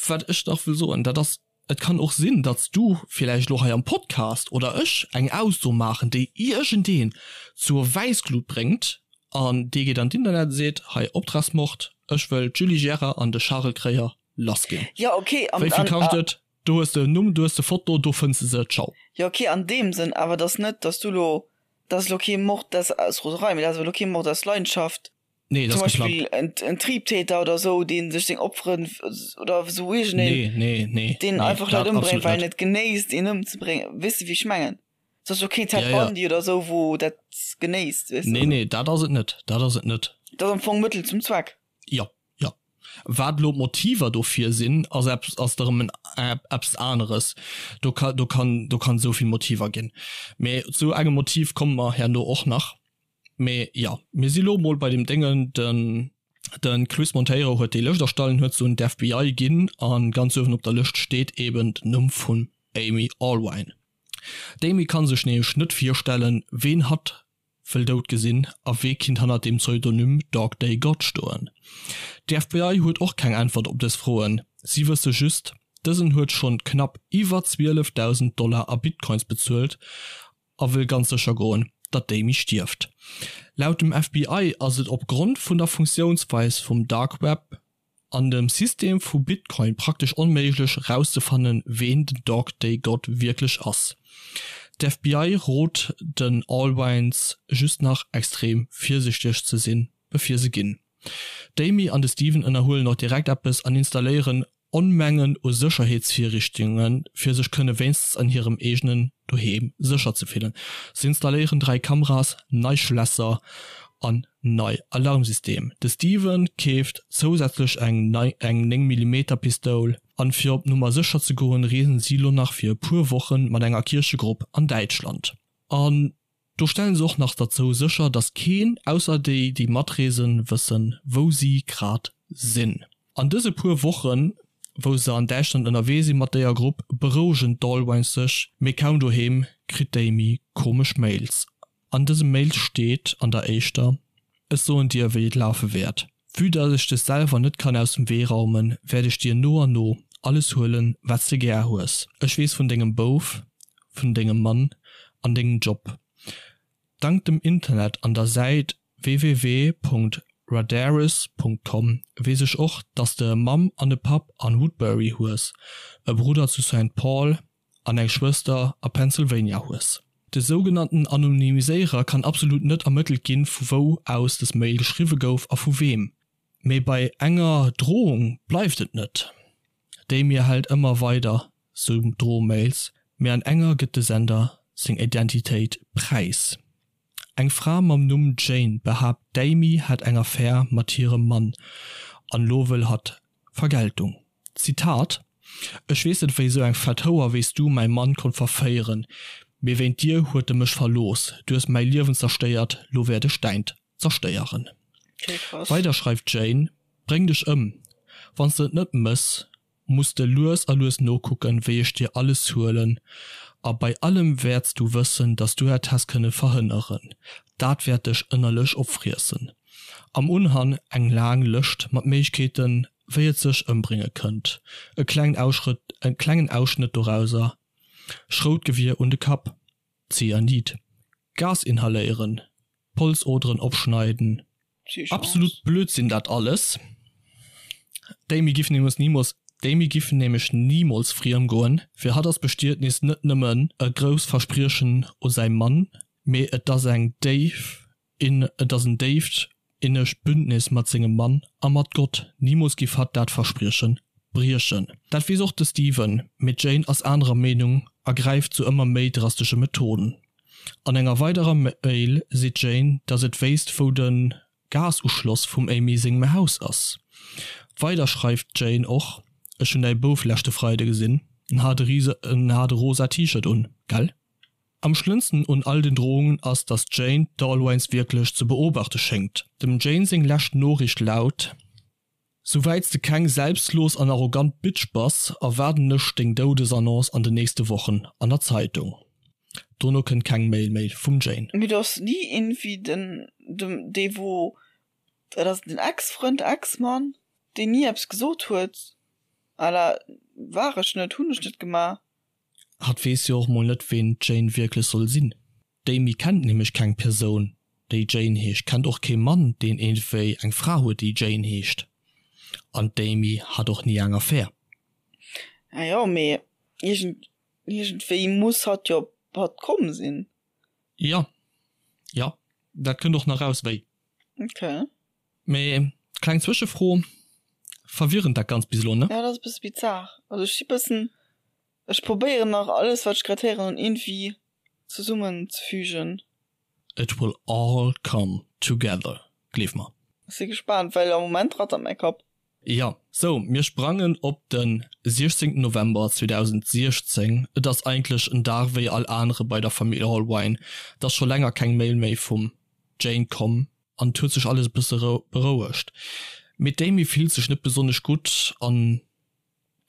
Speaker 1: Wat ech nach wëll soen, dat ass, et kann och sinn, datt s du villäicht elo hei am Podcast oder ech eng Ausso maachen, déi iergendeen zur Wäissglut bréngt an dee geet an d'Internet a seet, hei Optragsmord, ech wëll d'Julie Gérard an de Charel Kreyer lass ginn.
Speaker 2: Ja, okay,
Speaker 1: an, Wéi vill kascht et? Do hues de en Numm, do hues de Foto, do fënns de se, ciao.
Speaker 2: Jo, okay, an deem Sënn, awer et ass net, datt s du elo Dat ass elo kee Mord aus aus Roserei, mee dat ass elo kee Mord aus Leidenschaft.
Speaker 1: Nee, dat
Speaker 2: Zum
Speaker 1: ass
Speaker 2: Beispill
Speaker 1: geplangt.
Speaker 2: en, en Triebtäter oder esou, dee sech seng Opferen oder esou iergendeen,
Speaker 1: Nee, nee, nee,
Speaker 2: deen
Speaker 1: nee,
Speaker 2: einfach Leit
Speaker 1: dat
Speaker 2: ëmbréngt,
Speaker 1: absolut
Speaker 2: well en
Speaker 1: net.
Speaker 2: et genéisst, een ëmzebréngen. Weess de, wéi ech mengen? Et ass elo keen Ted
Speaker 1: Ja, ja.
Speaker 2: Bundy oder esou, wou dat genéisst, weess de?
Speaker 1: Nee, nee, dat ass et net. Dat ass et net.
Speaker 2: Dat ass am Fong Mëttel zum Zweck.
Speaker 1: Jo, jo. Wat elo d'Motiver dofir sinn, ass eppes, ass erëm en eppes aneres. Do ka, do kann, do kann esou vill Motiver ginn. Mee zu engem Motiv komme mer herno och nach. Mee jo, mir si lo mol bei deem Déngen, den, de Chris Monteiro huet déi Lëscht erstallen, huet se un d'FBI ginn a ganz uewen op der Lëscht steet eben den Numm vum Amy Allwine. D'Amy ka sech nämlech net virstellen, ween hatt wëll dout gesinn a wee kinnt hannert dem Pseudonym Dog Day God stoen? D'FBI huet och keng Äntwert op dës Froen, si wësse just, dësen huet schonn knapp iwwer 12.000 Dollar a Bitcoins bezuelt a wëll ganz sécher goen, datt d'Amy stierft. Laut dem FBI ass et opgrond vun der Funktiounsweis vum Dark Web an dem System vu Bitcoin praktesch onméiglech rauszefannen ween den Dog Day God wierklech ass. D'FBI rot den Allwines just nach extrem virsichteg ze sinn bevir se ginn. D'Amy an de Steven ënnerhuelen och direkt eppes an installéieren Onmengen u Sécherheetsvirrichtunge fir sech kënne wéinstens an hirem eegenen Doheem sécher ze fillen. Se installéieren 3 Kameras, nei Schlässer an nei Alarmsystem. De Steven keeft zousätzlech eng nei eng 9 Millimeter Pistoul an fir op Nummer sécher ze goen reesen si lo nach fir e puer Wochen mat enger Kierchegrupp an Däitschland. An Do stellen se och nach derzou sécher, dass keen, ausser déi, déi matreesen, wëssen, wou si grad sinn. An dëse puer Wochen, wou se an Däitschland ënnerwee si mat déier Grupp, berouegen d'Allwines sech, mee kaum doheem, kritt d'Amy komesch Mails. An dëse Mails steet an der éischter, Ech soen dir, wéi et lafe wäert. Vue dass ech dech selwer net kann aus dem Wee raumen, wäert ech dir no an no alles huelen, wat s de gär hues. Ech weess vun dengem Bouf, vun dengem Mann an dengem Job. Dank dem Internet an der Säit www.radaris.com weess ech och, dass de e Mamm an e Papp an Woodbury hues, e Brudder zu Saint Paul an eng Schwëster a Pennsylvania hues. De sougenannten Anonymiséierer kann absolut net ermëttelt ginn, vu wou aus des Mail geschriwwe gouf a vu weem. Mee bei enger Drohung bleift et net. Déi mir hält ëmmer weider sou Drohmails, mee an enger gëtt de Sender seng Identitéit präis. Eng Fra mam Numm Jane behaapt d'Amy hätt eng Affär mat hirem Mann an lo wëll hatt Vergeltung. Zitat, Ech weess net wéi sou eng fett Houer wéi s du mäi Mann konnt verféieren, mee wéint dir huet e mech verlooss, du hues mäi Liewen zerstéiert, lo wäert ech däint zerstéieren. Weider schreift d'Jane, Bréng dech ëm, wann s de et net mëss, muss de lues a lues nokucken, wéi ech dir alles huelen, a bei allem wäerts du wëssen, dass du et häss kënne verhënneren. Dat wäert dech ënnerlech opfriessen. Am Unhang eng laang Lëscht mat Méiglechkeeten, wéi et sech ëmbrénge kënnt. E klengen Ausschrëtt, e klengen Ausschnëtt dorauser, Schroutgewier un de Kapp, Zyanid, Gas inhaléieren, Polsoderen opschneiden. Absolut Blödsinn dat alles. D'Amy giff nämlech nimools D'Amy giff nämlech nimools friem goen. Fir hatt ass Bestietnis net nëmmen e grousst Verspriechen u säi Mann, mee et ass eng déif et ass en déift innegt Bündnis mat sengem Mann a mat Gott. Nimools giff hatt dat Versprieche briechen. Dat weess och de Steven, mee d'Jane ass anerer Meenung a gräift zu ëmmer méi drastesche Methoden. An enger weiderer Mail seet d'Jane, datt et wéisst wou de Gasuschloss vum Amy sengem Haus ass. Weider schreift d'Jane och, Ech hunn däi Bouf leschte Freide gesinn, en hat e rise en hat e rosa T-Shirt un, gell? Am schlëmmsten un all den Drohungen ass, datt d'Jane d'Allwines wierklech ze beobachte schéngt. Dem Jane seng lescht Noriicht laut, Souwäits de keng selbstlos an arrogant Bitch bass, erwaarden ech deng Doudesannonce an den nächste Wochen an der Zeitung. Dono kënnt keng Mail méi vum Jane.
Speaker 2: Mee do ass ni iergendwéi den, dem, dee wou, dat ass den Ex-Frënd, Ex-Mann, deen ni eppes gesot huet à la war ech net, hunn ech net gemaach.
Speaker 1: Hatt weess jo och mol net ween d'Jane wierklech soll sinn. D'Amy kennt nämlech keng Persoun déi Jane heescht, kennt och kee Mann deen iergendwéi eng Fra huet déi Jane heescht an d'Amy hat och ni eng Affär.
Speaker 2: Ah jo, mee iergend, iergendwéi muss hatt jo op hatt komm sinn.
Speaker 1: Jo, jo, dat kënnt och nach raus wéi.
Speaker 2: Ok.
Speaker 1: Mee kleng Zwëschefro, verwirrend dat Ganzt bis elo, ne?
Speaker 2: Jo, dat ass e bësse bizar. Also ech si bëssen, ech probéieren nach alles wat ech grad héieren hunn iergendwéi zesummen ze fügen.
Speaker 1: It will all come together, gleef mer.
Speaker 2: Ech si gespaant, well am Moment rattert mäi Kapp.
Speaker 1: Jo, sou, mir sprangen op de 16 November 2016. Et ass eigentlech en Dag wéi all anere bei der Famill Allwine. Et ass scho länger keng Mail méi vum Jane komm an et huet sech alles e bësse berouegt. Mee d'Amy fillt sech net besonnesch gutt an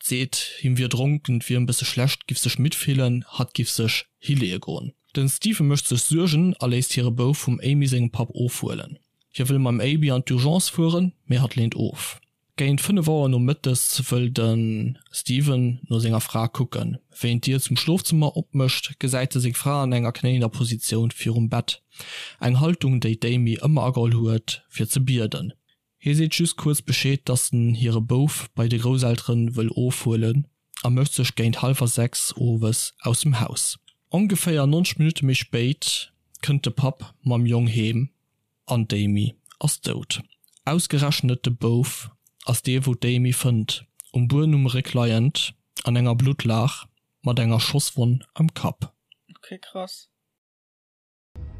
Speaker 1: Seet, him wier dronken, et wier em bësse schlecht, giff sech midd fillen, hatt giff sech hileeë goen. Den Stephen mécht sech Suergen a léisst hire Bouf vum Amy sengem Papp ofhuelen. Hie wëll mam Aby an d'Urgence fueren, mee hatt leent of. Géint 5 Auer nomëttes wëll de Stephen no senger Fra kucken. Wéi en d'Dier zum Schlofzëmmer opmécht, gesäit e seng Fra an enger knéiender Positioun virum Bett, eng Haltung, déi d'Amy ëmmer ageholl huet, fir ze bieden. Hie seet just kuerz Bescheed, dass en hire Bouf bei de Grousselteren wëll ofhuelen a mécht sech géint hallwer 6 owes aus dem Haus. Ongeféier 90 Minutte méi spéit kënnt de Papp mam Jong heem an d'Amy ass dout. Ausgerechnet de Bouf ass dee wou d'Amy fënnt, um Buedem um Réck leiend, an enger Bluttlaach, mat enger Schosswonn am Kapp.
Speaker 2: Ok krass.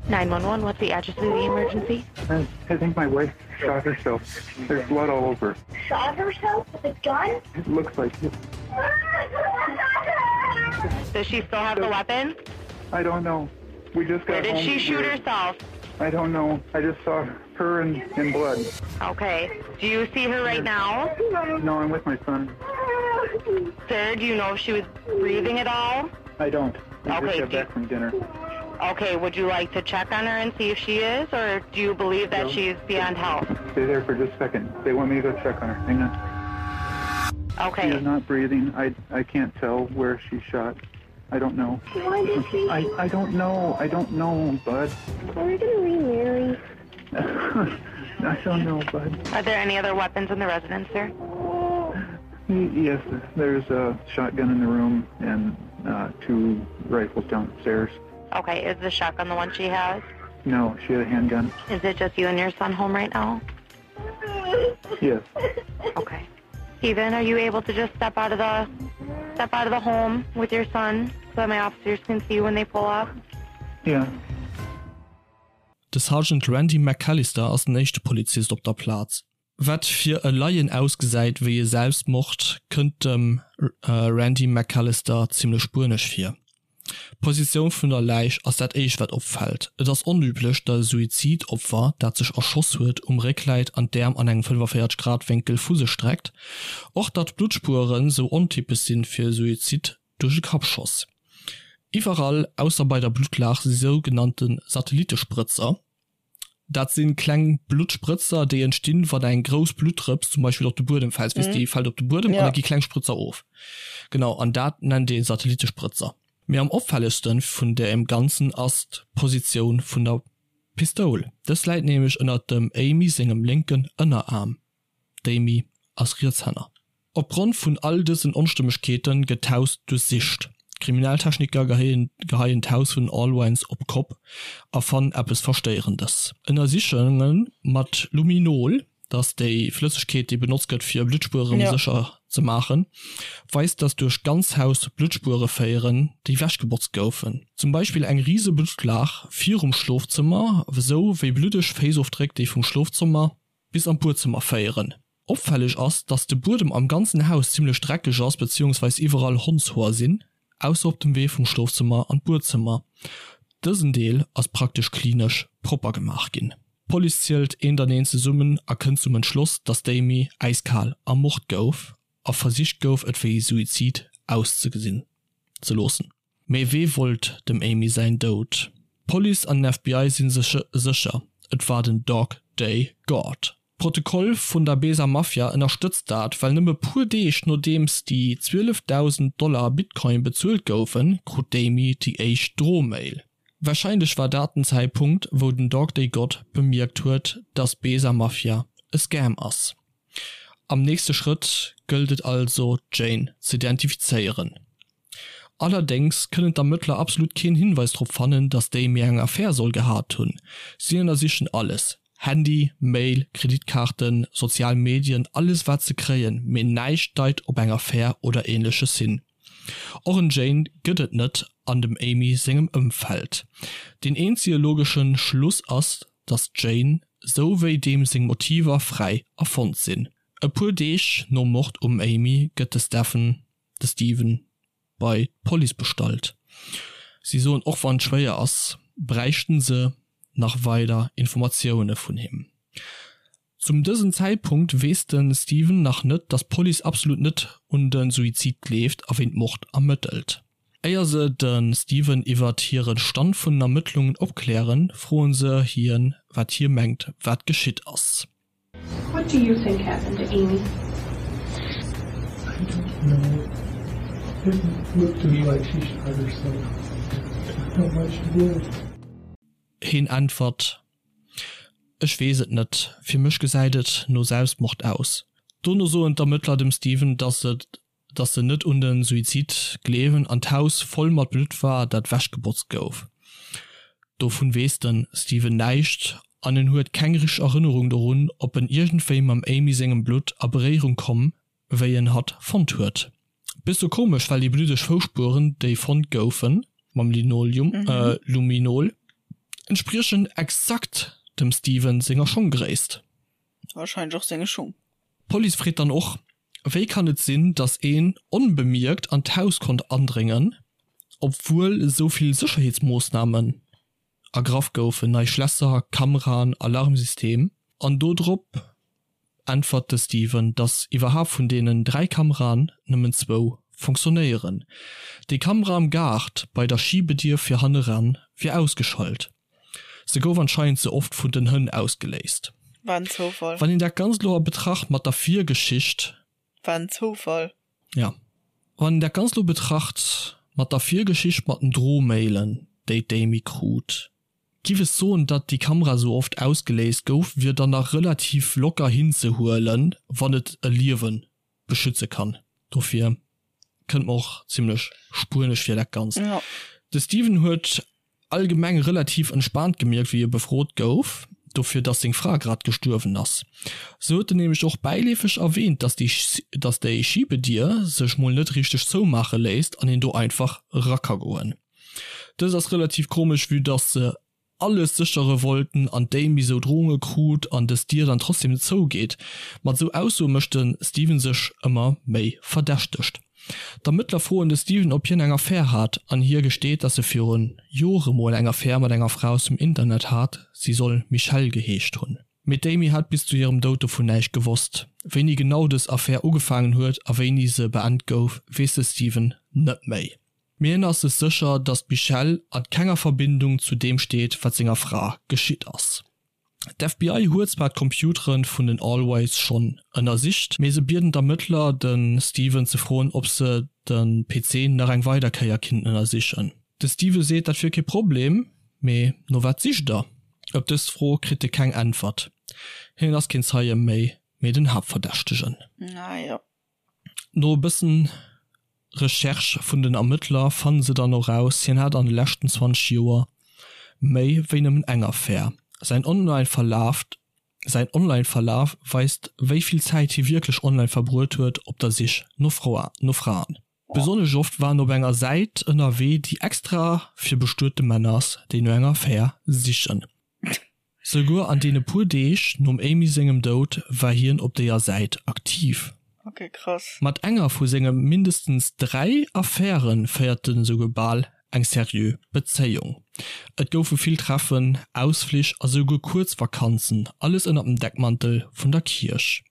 Speaker 3: 911, what's the address of the emergency? I, I think my wife shot herself. There's blood all over.
Speaker 4: Shot herself with a gun?
Speaker 3: It looks like it. Does she still have the weapon?
Speaker 5: I don't know. We just got
Speaker 3: Where did
Speaker 5: home.
Speaker 3: she shoot herself?
Speaker 5: I don't know. I just saw her in, in blood.
Speaker 3: Okay. Do you see her right now?
Speaker 5: No, I'm with my son.
Speaker 3: Sir, do you know if she was breathing at all?
Speaker 5: I don't. We
Speaker 3: Okay,
Speaker 5: just got
Speaker 3: do you-
Speaker 5: back from dinner.
Speaker 3: Okay, would you like to check on her and see if she is, or do you believe that
Speaker 5: No.
Speaker 3: she's beyond help?
Speaker 5: Stay there for just a second. They want me to go check on her. Hang on.
Speaker 3: Okay.
Speaker 5: She is not breathing. I, I can't tell where she shot. I don't know.
Speaker 4: Why did she?
Speaker 5: I, I don't know. I don't know, bud.
Speaker 4: Are we gonna remarry?
Speaker 5: I don't know, bud.
Speaker 3: Are there any other weapons in the residence, sir?
Speaker 5: Y- Yes, there's a shotgun in the room and uh, two rifles downstairs.
Speaker 3: Okay, is the shotgun the one she has?
Speaker 5: No, she had a handgun.
Speaker 3: Is it just you and your son home right now?
Speaker 5: Yes.
Speaker 3: Okay. Steven, are you able to just step out of the step out of the home with your son so that my officers can see you when they pull up?
Speaker 5: Yeah.
Speaker 1: De Sergeant Randy McAllister ass den éischte Polizist op der Plaz. Wat fir e Laien ausgesäit wéi e Selbstmord, kënnt dem Randy McAllister zimmlech spuenesch vir. D'Positioun vun der Läich ass dat éischt wat opfält. Et ass onüblech, datt e Suizidopfer, dat sech erschoss huet, um Réck läit an d'Äerm an engem 45 Grad Wénkel vu sech streckt. Och datt d'Bluttspueren sou ontypesch sinn fir e Suizid duerch e Kappschoss. Iwwerall, ausser bei der Bluttlaach, si sougenannte Satellitesprëtzer. Dat si kleng Bluttsprëtzer, déi entstinn, wann eng grouss Bluttdrëps zum Beispill op de Buedem fält. Weess, déi fält op de Buedem an da gi kleng Sprëtzer of. Genau, an dat nennt ee Satellitesprëtzer. Mee am opfällegste vun deem Ganzen ass d'Positioun vun der Pistoul. Dës läit nämlech ënnert dem Amy sengem lénken Ënneraarm. D'Amy. ass Rietshänner. Opgrond vun all dësen Onstëmmegkeete gëtt d'Haus duerchsicht. D'Kriminaltechniker geheien d'Haus vun den Allwines op d'Kopp a fannen eppes Verstéierendes. Ënnersichunge mat Luminol, dat ass déi Flëssegkeet, déi benotzt gëtt, fir Bluttspuere sécher ze maachen, weist, datt duerch d'ganz Haus Bluttspuere féieren, déi wechgebotzt goufen. Zum Beispill eng rise Bluttlaach virum Schlofzëmmer, esou wéi bluddeg Féissofdréck, déi vum Schlofzëmmer bis an d'Buedzëmmer féieren. Opfälleg ass, dass de Buedem am ganzen Haus zimmlech dreckeg ass beziehungsweis iwwerall Hondshoer sinn, ausser op dem Wee vum Schlofzëmmer an d'Buedzëmmer. Dësen Deel ass praktesch klinesch propper gemaach ginn. D'Police zielt eent an eent zesummen a kënnt zum Entschloss, dass d'Amy äiskal ermort gouf a versicht gouf et wéi Suizid auszegesinn ze loossen. Mee wee wollt dem Amy säin Doud? D'Police an den FBI si sech sécher, et war den Dog Day God. D'Protokoll vun der Besa Mafia ënnerstëtzt dat, well nëmme puer Deeg nodeems déi 12.000 Dollar Bitcoin bezuelt goufen, krut d'Amy déi éischt Drohmail. Warscheinlech war dat den Zäitpunkt, wou den Dog Day God bemierkt huet, dass d'Besa Mafia e Scam ass. Am nächste Schrëtt gëllt et also, d'Jane z'identifizéieren. Allerdéngs kënnen d'Ermëttler absolut keen Hinweis drop fannen, datt d'Amy eng Affär soll gehat hunn. Si ënnersichen alles, Handy, Mail, Kreditkaarten, sozial Medien, alles wat se kréien, mee näischt deit op eng Affär oder ähnleches hin. Och en Jane gëtt et net an dem Amy sengem Ëmfeld. Deen eenzege logesche Schluss ass, datt d'Jane, sou wéi deem seng Motiver fräi erfonnt sinn. E puer Deeg nom Mord um Amy gëtt de Stephen de Steven bei d'Police bestallt. Si soen, och wann et schwéier ass, bräichten se nach weider Informatioune vun him. Zum dësen Zäitpunkt weess de Steven nach net, datt d'Police absolut net un de Suizid gleeft a wéint Mord ermëttelt. Éier se de Steven iwwert hire Stand vun den Ermëttlungen opklären, froen se hien, wat hie mengt, wat geschitt ass.
Speaker 6: What do you think happened to Amy?
Speaker 5: I don't know. It looked to me like she shot herself. I don't know why she would.
Speaker 1: Heen äntwert, Ech weess et net, fir mech gesäit et no Selbstmord aus. Dono soen d'Ermëttler dem Steven, dass et dass se net un de Suizid gleewen an d'Haus voll mat Blutt war, dat wechgebotzt gouf. Dovun weess de Steven näischt an en huet keng richteg Erënnerung dorun, ob en iergendwéi mam Amy sengem Blutt a Beréierung komm, wéi en hatt fonnt huet. Bësse komesch, well déi bluddeg Foussspueren, déi fonnt goufen, mam Linoleum, Luminol, entspriechen exakt dem Steven senger Schonggréisst.
Speaker 2: Wahrscheinlech och senge Schung.
Speaker 1: D'Police freet dann och, Wéi kann et sinn, datt een onbemierkt an d'Haus konnt andréngen, obwuel esou vill Sécherheetsmoossnamen ergraff goufen, nei Schlässer, Kameraen, Alarmsystem? An do drop äntwert de Steven, datt iwwerhaapt vun deenen 3 Kameraen nëmmen zwou fonctionnéieren. Déi Kamera am Gaart bei der Schibedier fir hanneran wier ausgeschalt. Se gouf anscheinend ze oft vun den Hënn ausgeléist.
Speaker 2: War en Zoufall.
Speaker 1: Wann een dat Ganzt lo a Betracht mat der Virgeschicht.
Speaker 2: War en Zoufall.
Speaker 1: Ja. Wann een dat Ganzt lo betracht mat der Virgeschicht mat den Drohmailen, déi d'Amy krut, giff ech soen, datt déi Kamera sou oft ausgeléist gouf, wier dann nach relativ locker hinzehuelen, wann et e Liewen beschütze kann. Dofir kënnt mer och zimlech spuenesch vir dat Ganzt. De Steven huet allgemeng relativ entspaant gemierkt wéi e befrot gouf, dofir dass seng Fra grad gestuerwen ass. Sou huet en nämlech och bäileefeg erwähnt, dass déi dass déi Schibedier sech mol net richteg zoumaache léisst an een do einfach era ka goen. Dëst ass relativ komesch vue dass se alles séchere wollten an d'Amy sou Drohunge krut an dës Dier dann trotzdem net zougeet. Mat sou Aussoe mécht de Steven sech ëmmer méi verdächtegt. D'Ermëttler froen de Steven ob hien eng Affär hat an hie gesteet dass e virun Jore mol eng Affär mat enger Fra aus dem Internet hat, si soll Michelle geheescht hunn. Mee d'Amy hat bis zu hirem Doud dovun näischt gewosst. Wéini genau dës Affär ugefaangen huet a wéini se beend gouf, weess de Steven net méi. Mee hien ass sech sécher, datt d'Michelle a kenger Verbindung zu deem steet, wat senger Fra geschitt ass. D'FBI huet zwar d'Computere vun den Allways schonn ënnersicht, mee se bieden d'Ermëttler, de Steven ze froen, ob se de PC nach eng weider Kéier kinnten ënnersichen. De Steven seet, dat wier kee Problem, mee no wat sicht der? Op dës Fro kritt e keng Äntwert. Hien ass keen Zeie méi. Mee den Haaptverdächtegen.
Speaker 2: Ah jo.
Speaker 1: No e bëssen Recherche vun den Ermëttler fannen se dann och raus, hien hat an de leschten 20 Joer méi wéi nëmmen eng Affär. Säin Online-Verlaf säin Online-Verlaf weist wéi vill Zäit hie wierklech online verbruet huet op der Sich no Fraen. Besonnesch oft war en op enger Säit ënnerwee, déi extra fir bestuete Männer ass, déi no enger Affär sichen. Souguer an deene puer Deeg nom Amy sengem Doud war hien op déier Säit aktiv.
Speaker 2: Ok, krass.
Speaker 1: Mat enger vu senge mindestens 3 Affäre féiert en esouguer bal eng seriö Bezéiung. Et goufe vill Treffen, Ausflich a souguer kuerz Vakanzen, alles ënner dem Deckmantel vun der Kierch.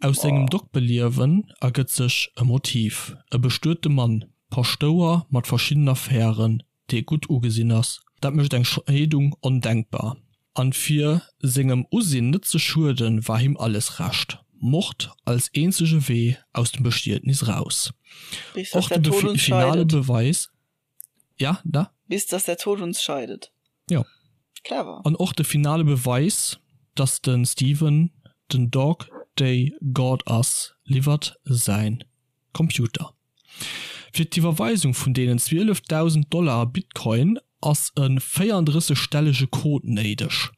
Speaker 1: Aus sengem Doktbeliewen ergëtt sech e Motiv, e bestuete Mann, Paschtouer mat verschiddenen Affären, dee gutt ugesinn ass, dat mécht eng Scheedung ondenkbar. An fir sengem Usinn net ze schueden, war him alles Recht, Mord als eenzege Wee aus dem Bestietnis raus.
Speaker 2: Bis dass
Speaker 1: Och
Speaker 2: der
Speaker 1: de
Speaker 2: Tod uns
Speaker 1: finale
Speaker 2: scheidet.
Speaker 1: Beweis, ja, da?
Speaker 2: Bis dass der Tod uns scheidet.
Speaker 1: Jo.
Speaker 2: Clever.
Speaker 1: An och de finale Beweis, dass de Steven den Dog Day God ass, liwwert säin Computer. Fir d'Iwwerweisung vun deenen 12.000 Dollar a Bitcoin ass e 34 stellege Code néideg.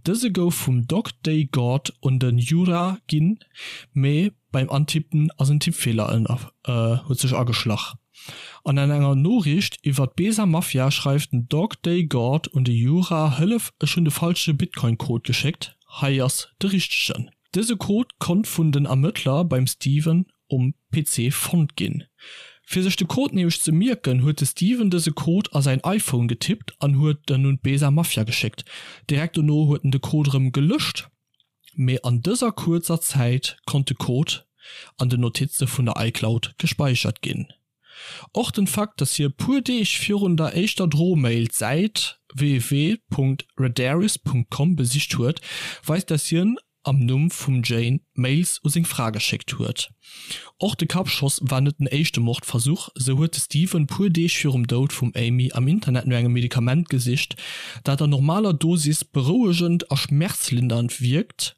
Speaker 1: Dëse gouf vum Dog Day God un de Jura ginn, mee beim Antippen ass en Tippfeeler huet sech ageschlach. An an enger Noriicht iwwer d'Besa Mafia schreift den Dog Day God un de Jura, Hëllef, ech hunn de falsche Bitcoin-Code geschéckt, hei ass de richtegen. Dëse Code konnt vun den Ermëttler beim Steven um PC fonnt ginn. Fir sech de Code nämlech ze mierken, huet de Steven dëse Code a säin iPhone getippt an huet en un d'Besa Mafia geschéckt. Direkt dono huet en de Code erëm gelëscht, mee an dëser kuerzer Zäit konnt de Code an den Notize vun der iCloud gespeichert ginn. Och den Fakt, dass hie puer Deeg virun der éischter Drohmail d'Säit www.redaris.com besicht huet, weist, dass hien am Numm vum Jane Mails u seng Fra geschéckt huet. Och de Kappschoss war net den éischte Mordversuch, sou huet de Steven puer Deeg virum Doud vum Amy am Internet no engem Medikament gesicht, dat an normaler Dosis berouegend a schmerzlindernd wierkt,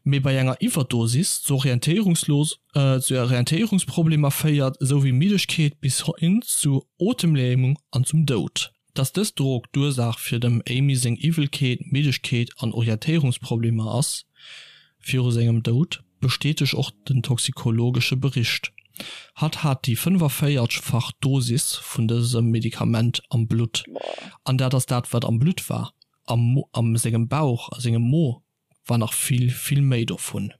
Speaker 1: mee bei enger Iwwerdosis zu Orientéierungsproblemer féiert, esou wéi Middegkeet bis hin zu Otemlämung an zum Doud. Dass dës Drog d'Ursaach fir dem Amy seng Iwwelkeet, Middegkeet an Orientéierungsproblemer ass viru sengem Doud, bestätegt och den toxikologesche Bericht. Hatt hat déi 45 fach Dosis vun dësem Medikament am Blutt. An dat ass dat wat am Blutt war. Am am sengem Bauch, a sengem Mo war nach vill, vill méi dovun.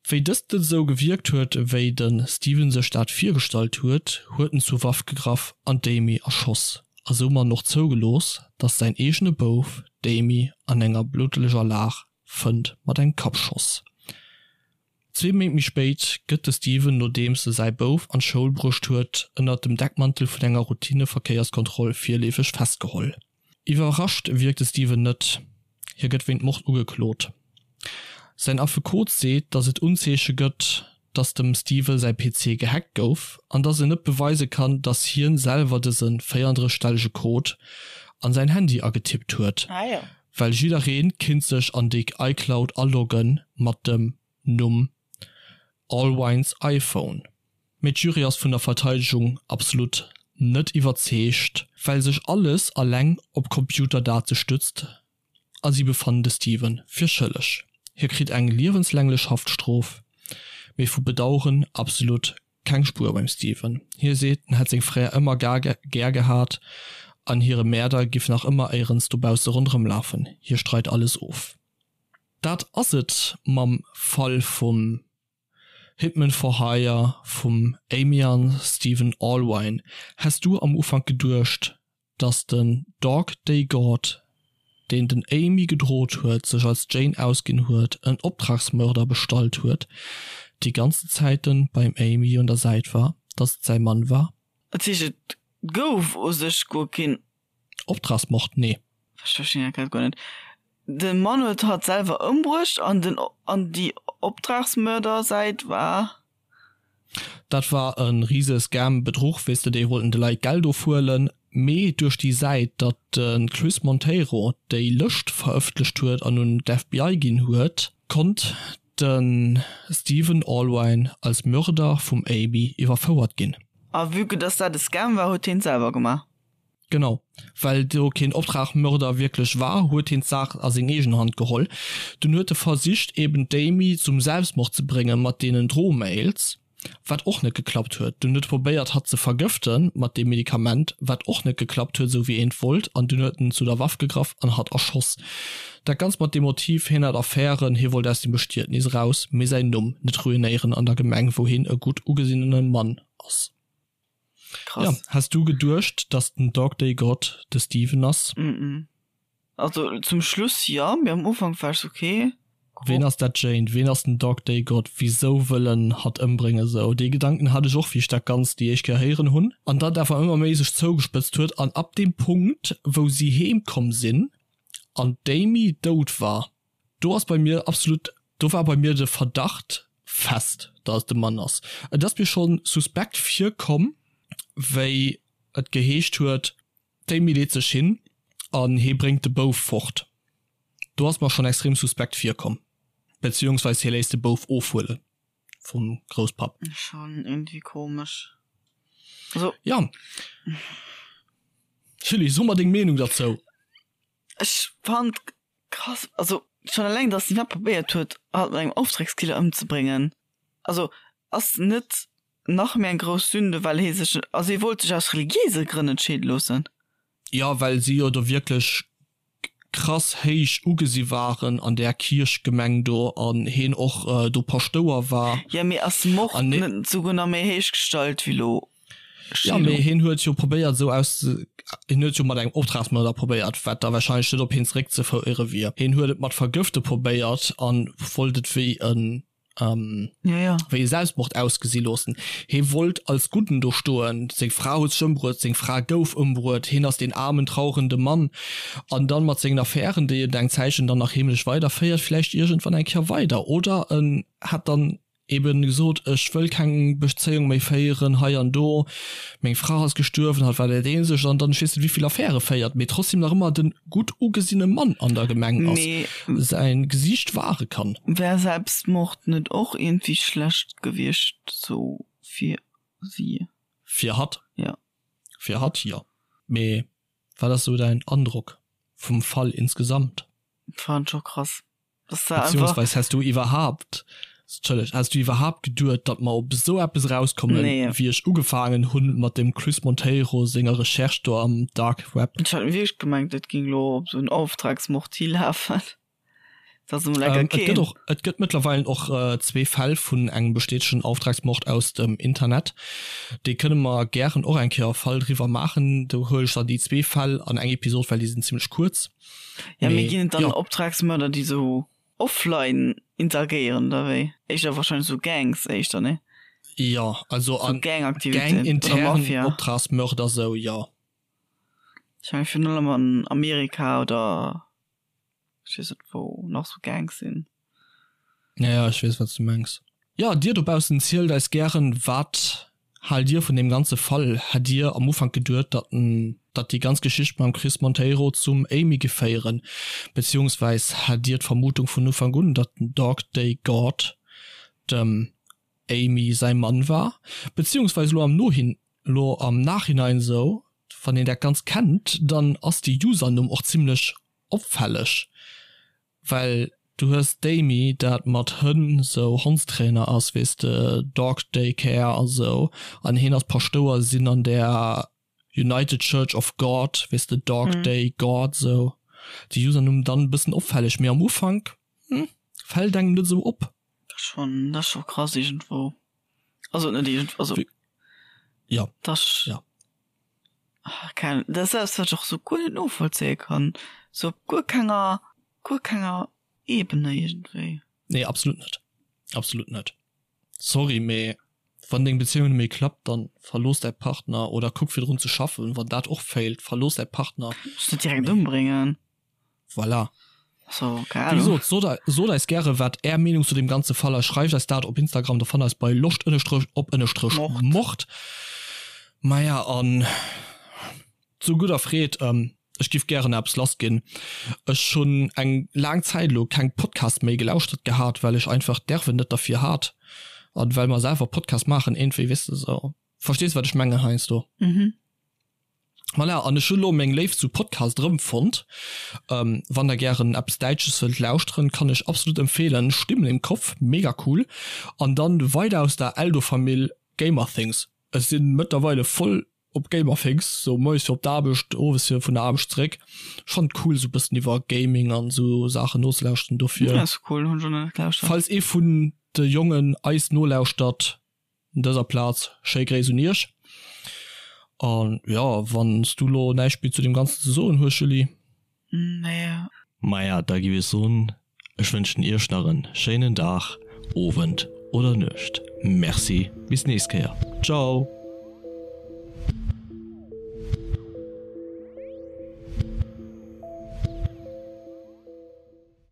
Speaker 1: Wéi dëst net esou gewierkt huet, wéi de Steven sech dat virgestallt huet, huet en zur Waff gegraff an d'Amy erschoss a soumat och zougelooss, datt säin eegene Bouf d'Amy an enger bluddleger Lag fënnt mat engem Kappschoss. Zwee Méint méi spéit gëtt de Steven, nodeems e säi Bouf an d'Schoul bruecht huet, ënnert dem Deckmantel vun enger Routineverkéierskontroll virleefeg festgeholl. Iwwerrascht wierkt de Steven net, hie gëtt wéint Mord ugeklot. Säin Affekot seet, datt et Unzeeche gëtt, datt dem Steven säi PC gehackt gouf an datt en net beweise kann, datt hien selwer dëse 34 stellege Code an säin Handy agetippt huet, well jidderee kinnt sech an déi iCloud alogge mat dem Numm Allwines iPhone. Mee d'Jury ass vun der Verteidegung absolut net iwwerzeegt, well sech alles alleng op Computerdate stützt a si befannen de Steven fir schëlleg. Hie kritt eng liewenslänglech Haftstrof, mee vu Bedaueren absolut keng Spuer beim Steven. Hie seet, en hätt seng Frae ëmmer gär gehat an hire Mäerder giff nach ëmmer éierens dobausse ronderëm lafen. Hie streit alles of. Dat ass et mam Fall vum Hitman for Hire vum Amy an Steven Allwine. Häss du am Ufank geduecht, dass den Dog Day God, deen den Amy gedrot huet, sech als Jane ausginn huet, en Optragsmörder bestallt huet, déi ganzen Zäiten beim Amy un der Säit war, dass et säi Mann war?
Speaker 2: Dat heescht et gouf u sech guer keen.
Speaker 1: Optragsmord? Nee.
Speaker 2: Ech verstinn dat grad guer net. De Mann huet hatt selwer ëmbruecht an den an déi Optragsmördersäit war.
Speaker 1: Dat war e rise Scam, Bedruch, weess de, déi wollten de Leit Geld ofhuelen, mee duerch déi Säit, datt de Chris Monteiro déi Lëscht verëffentlecht huet an un d'FBI ginn huet, konnt. de Steven Allwine als Mörder vum Amy iwwerfouert ginn.
Speaker 2: A vue que dass dat e Scam war, huet hien et selwer gemaach.
Speaker 1: Genau, well do keen Optragmörder wierklech war, huet hien d'Saach a seng eegen Hand geholl. Dunn huet e versicht eben d'Amy zum Selbstmord ze brénge mat deenen Drohmails, wat och net geklappt huet. Dunn huet e probéiert hatt ze vergëfte mat deem Medikament, wat och net geklappt huet, esou wéi een et wollt. An dunn huet en zu der Waff gegraff an hatt erschoss. Dat Ganzt mat dem Motiv, hien hat Affären, hie wollt aus dem Bestietnis eraus, mee säin Numm net ruinéieren an der Gemeng, wou hien e gutt ugesinnene Mann ass.
Speaker 2: Krass.
Speaker 1: Ja, has du geduecht, dass den Dog Day God de Steven ass?
Speaker 2: Mm mm. Also zum Schluss jo, mee am Ufank war ech sou okay.
Speaker 1: Ween ass dat Jane? Ween ass den Dog Day God? Wisou wëll en hatt ëmbréngen? Sou dee Gedanken hat ech och, wéi ech dat Ganzt déi éischt Kéier héieren hunn. An dat awer ëmmer méi sech zougespëtzt huet an ab deem Punkt, wou si heem komm sinn an d'Amy dout war, Do ass bei mir absolut, do war bei mir de Verdacht fest, dass et de Mann ass. Et ass mir scho suspekt virkomm, wéi et geheescht huet, d'Amy leet sech hin an hee bréngt de Bouf fort. Do ass mer schonn extrem suspekt virkomm, beziehungsweis hie léisst de Bouf ofhuele vum Grousspapp.
Speaker 2: Schon irgendwie komesch. Also.
Speaker 1: Ja. Julie, so mer deng Meenung derzou.
Speaker 2: Ech fand Krass, also schon eleng dass si iwwerhaapt probéiert huet hatt mat engem Auftragskiller ëmzebréngen, also ass net nach méi eng grouss Sünde well hee sech, also hie wollt sech aus religiéise Grënn net scheede loossen.
Speaker 1: Jo, well si jo do wierklech krass héich ugesi waren an där Kierchgemeng do an heen och do Paschtouer war.
Speaker 2: Jo, mee ass Mord net souguer nach méi héich gestallt wéi lo
Speaker 1: Jo, mee hien huet jo probéiert esou aus, hien huet jo mat engem Optragsmörder probéiert, wat da wahrscheinlech net op hien zeréckzeféiere wier. Hien huet et mat Vergëfte probéiert a wollt et wéi en, wéi e Selbstmord ausgesi loossen. Hie wollt als Gudden do stoen, seng Fra huet sech ëmbruet, seng Fra gouf ëmbruet, hien ass deen aarmen, trauerende Mann. An dann mat sengen Affären, déi en eng Zäitchen dann nach heemlech weiderféiert, vläicht iergendwann eng Kéier weider. Oder en hätt dann eben gesot, ech wëll keng Bezéiung méi féieren hei an do, meng Fra ass gestuerwen, hatt war dat eenzegt an dann ech weess net wéivill Affäre féiert, mee trotzdem nach ëmmer den gutt ugesinne Mann an der Gemeng ass,
Speaker 2: Mee
Speaker 1: säin Gesiicht ware kann.
Speaker 2: Wär Selbstmord net och iergendwéi schlecht gewiescht sou fir si?
Speaker 1: Fir hatt?
Speaker 2: Jo.
Speaker 1: Fir hatt jo. Mee wat ass sou däin Androck vum Fall insgesamt?
Speaker 2: Fannen scho krass.
Speaker 1: Beziehungsweis häss du iwwerhaapt, Entschëlleg, häss du iwwerhaapt geduet, datt mer op esou eppes erauskommen,
Speaker 2: Nee.
Speaker 1: wéi ech ugefaangen hunn mat dem Chris Monteiro senger Recherche do am Dark Web?
Speaker 2: Ech hat wierklech gemengt, et géing elo op esou en Auftragsmord hilafen. Dat ass emol enker
Speaker 1: Et gëtt
Speaker 2: keen.
Speaker 1: och, et gëtt mëttlerweilen och zwee Fäll vun engem bestätegen Auftragsmord aus dem Internet. Déi kënne mer gären och eng Kéier e Fall driwwer maachen. Do huele ech dann déi zwee Fäll an eng Episod, well déi sinn zimlech kuerz.
Speaker 2: Ja, mee ginn et dann Optragsmörder, déi sou offline interagéieren oder wéi? Éischter wahrscheinlech sou Gangs éischter, nee?
Speaker 1: Jo, also
Speaker 2: an Gangaktivitéiten oder Mafia.
Speaker 1: Optragsmörder sou, jo.
Speaker 2: Ech mengen virun allem an Amerika oder ech weess net wou nach sou Gangs sinn.
Speaker 1: Ja, ja, ech weess wat s du mengs. Jo, dir dobaussen zielt eis gären, wat haalt dir vun deem ganze Fall? Hätt dir am Ufank geduet, datt en, datt déi ganz Geschicht mam Chris Monteiro zum Amy géif féieren? Beziehungsweis hat dir d'Vermutung vun Ufank un, datt den Dog Day God dem Amy säi Mann war? Beziehungsweis elo am Nohin, elo am Nachhinein esou, wann een dat Ganzt kennt, dann ass de Usernumm och zimlech opfälleg. Well du hues d'Amy dat mat Hënn sou Hondstrainer ass weess de, Dog Day Care a sou, an heen ass Paschtouer sinn an der United Church of God weess de, Dog Day God sou. De Usernumm dann bëssen opfälleg, mee am Ufank fällt engem net sou op.
Speaker 2: Dat ass schon, dat ass scho krass iergendwou. Also net iergend, also
Speaker 1: Jo,
Speaker 2: dat ass.
Speaker 1: jo.
Speaker 2: Keng, dat ass eppes wat ech och sou guer net novollzéie kann, sou op guer kenger, guer kenger Ebene iergendwéi.
Speaker 1: Nee, absolut net, absolut net. Sorry, mee wann deng Bezéiung net méi klappt, dann verlooss däi Partner oder kuck fir drun ze schaffen. Wann dat och failt, verlooss däi Partner.
Speaker 2: Muss net direkt ëmbréngen.
Speaker 1: Voilà.
Speaker 2: So, keine
Speaker 1: Wéi
Speaker 2: Ahnung.
Speaker 1: gesot, sot, sot eis gäre wat är Meenung zu deem ganze Fall ass. Schreift eis dat op Instagram, do fannt eis bei loscht ënnerstrech op ënnerstrech
Speaker 2: Mord.
Speaker 1: Mord. Maja, an zu gudder Freed, ähm. Ech giff gären eppes lass ginn. Ech hunn eng laang Zäit elo keng Podcast méi gelauschtert gehat, well ech einfach d'Nerven net derfir hat an well mer selwer Podcast maachen iergendwéi, weess de sou. Verstees wat ech mengen heiansdo?
Speaker 2: Mhm.
Speaker 1: Voilà, an ech hunn elo meng Léift zu Podcast erëmfonnt. Wann der gären eppes Däitsches wëllt lauschteren, kann ech absolut empfehlen, Stimmen im Kopf, mega cool. An dann weider aus der Eldo-Famill, Gamerthings. Ech sinn mëttlerweile voll op Gamerthings, sou moies fir op d'Aarbecht, owes fir vun der Aarbecht zeréck. Ech fannen et cool sou bëssen iwwer Gaming an sou Saachen nozelauschteren, dofir
Speaker 2: Ja, ass cool, hunn ech och nach net gelauschtert.
Speaker 1: falls ee vun de Jongen eis nolauschtert, un dëser Plaz schéi Gréiss un iech. An jo, wann s du lo näischt méi zu deem Ganzen ze soen hues, Julie?
Speaker 2: Nee.
Speaker 1: Maja, da giff ech soen, ech wënschen iech nach en schéinen Dag, Owend oder Nuecht. Merci, bis nächst Kéier. Ciao!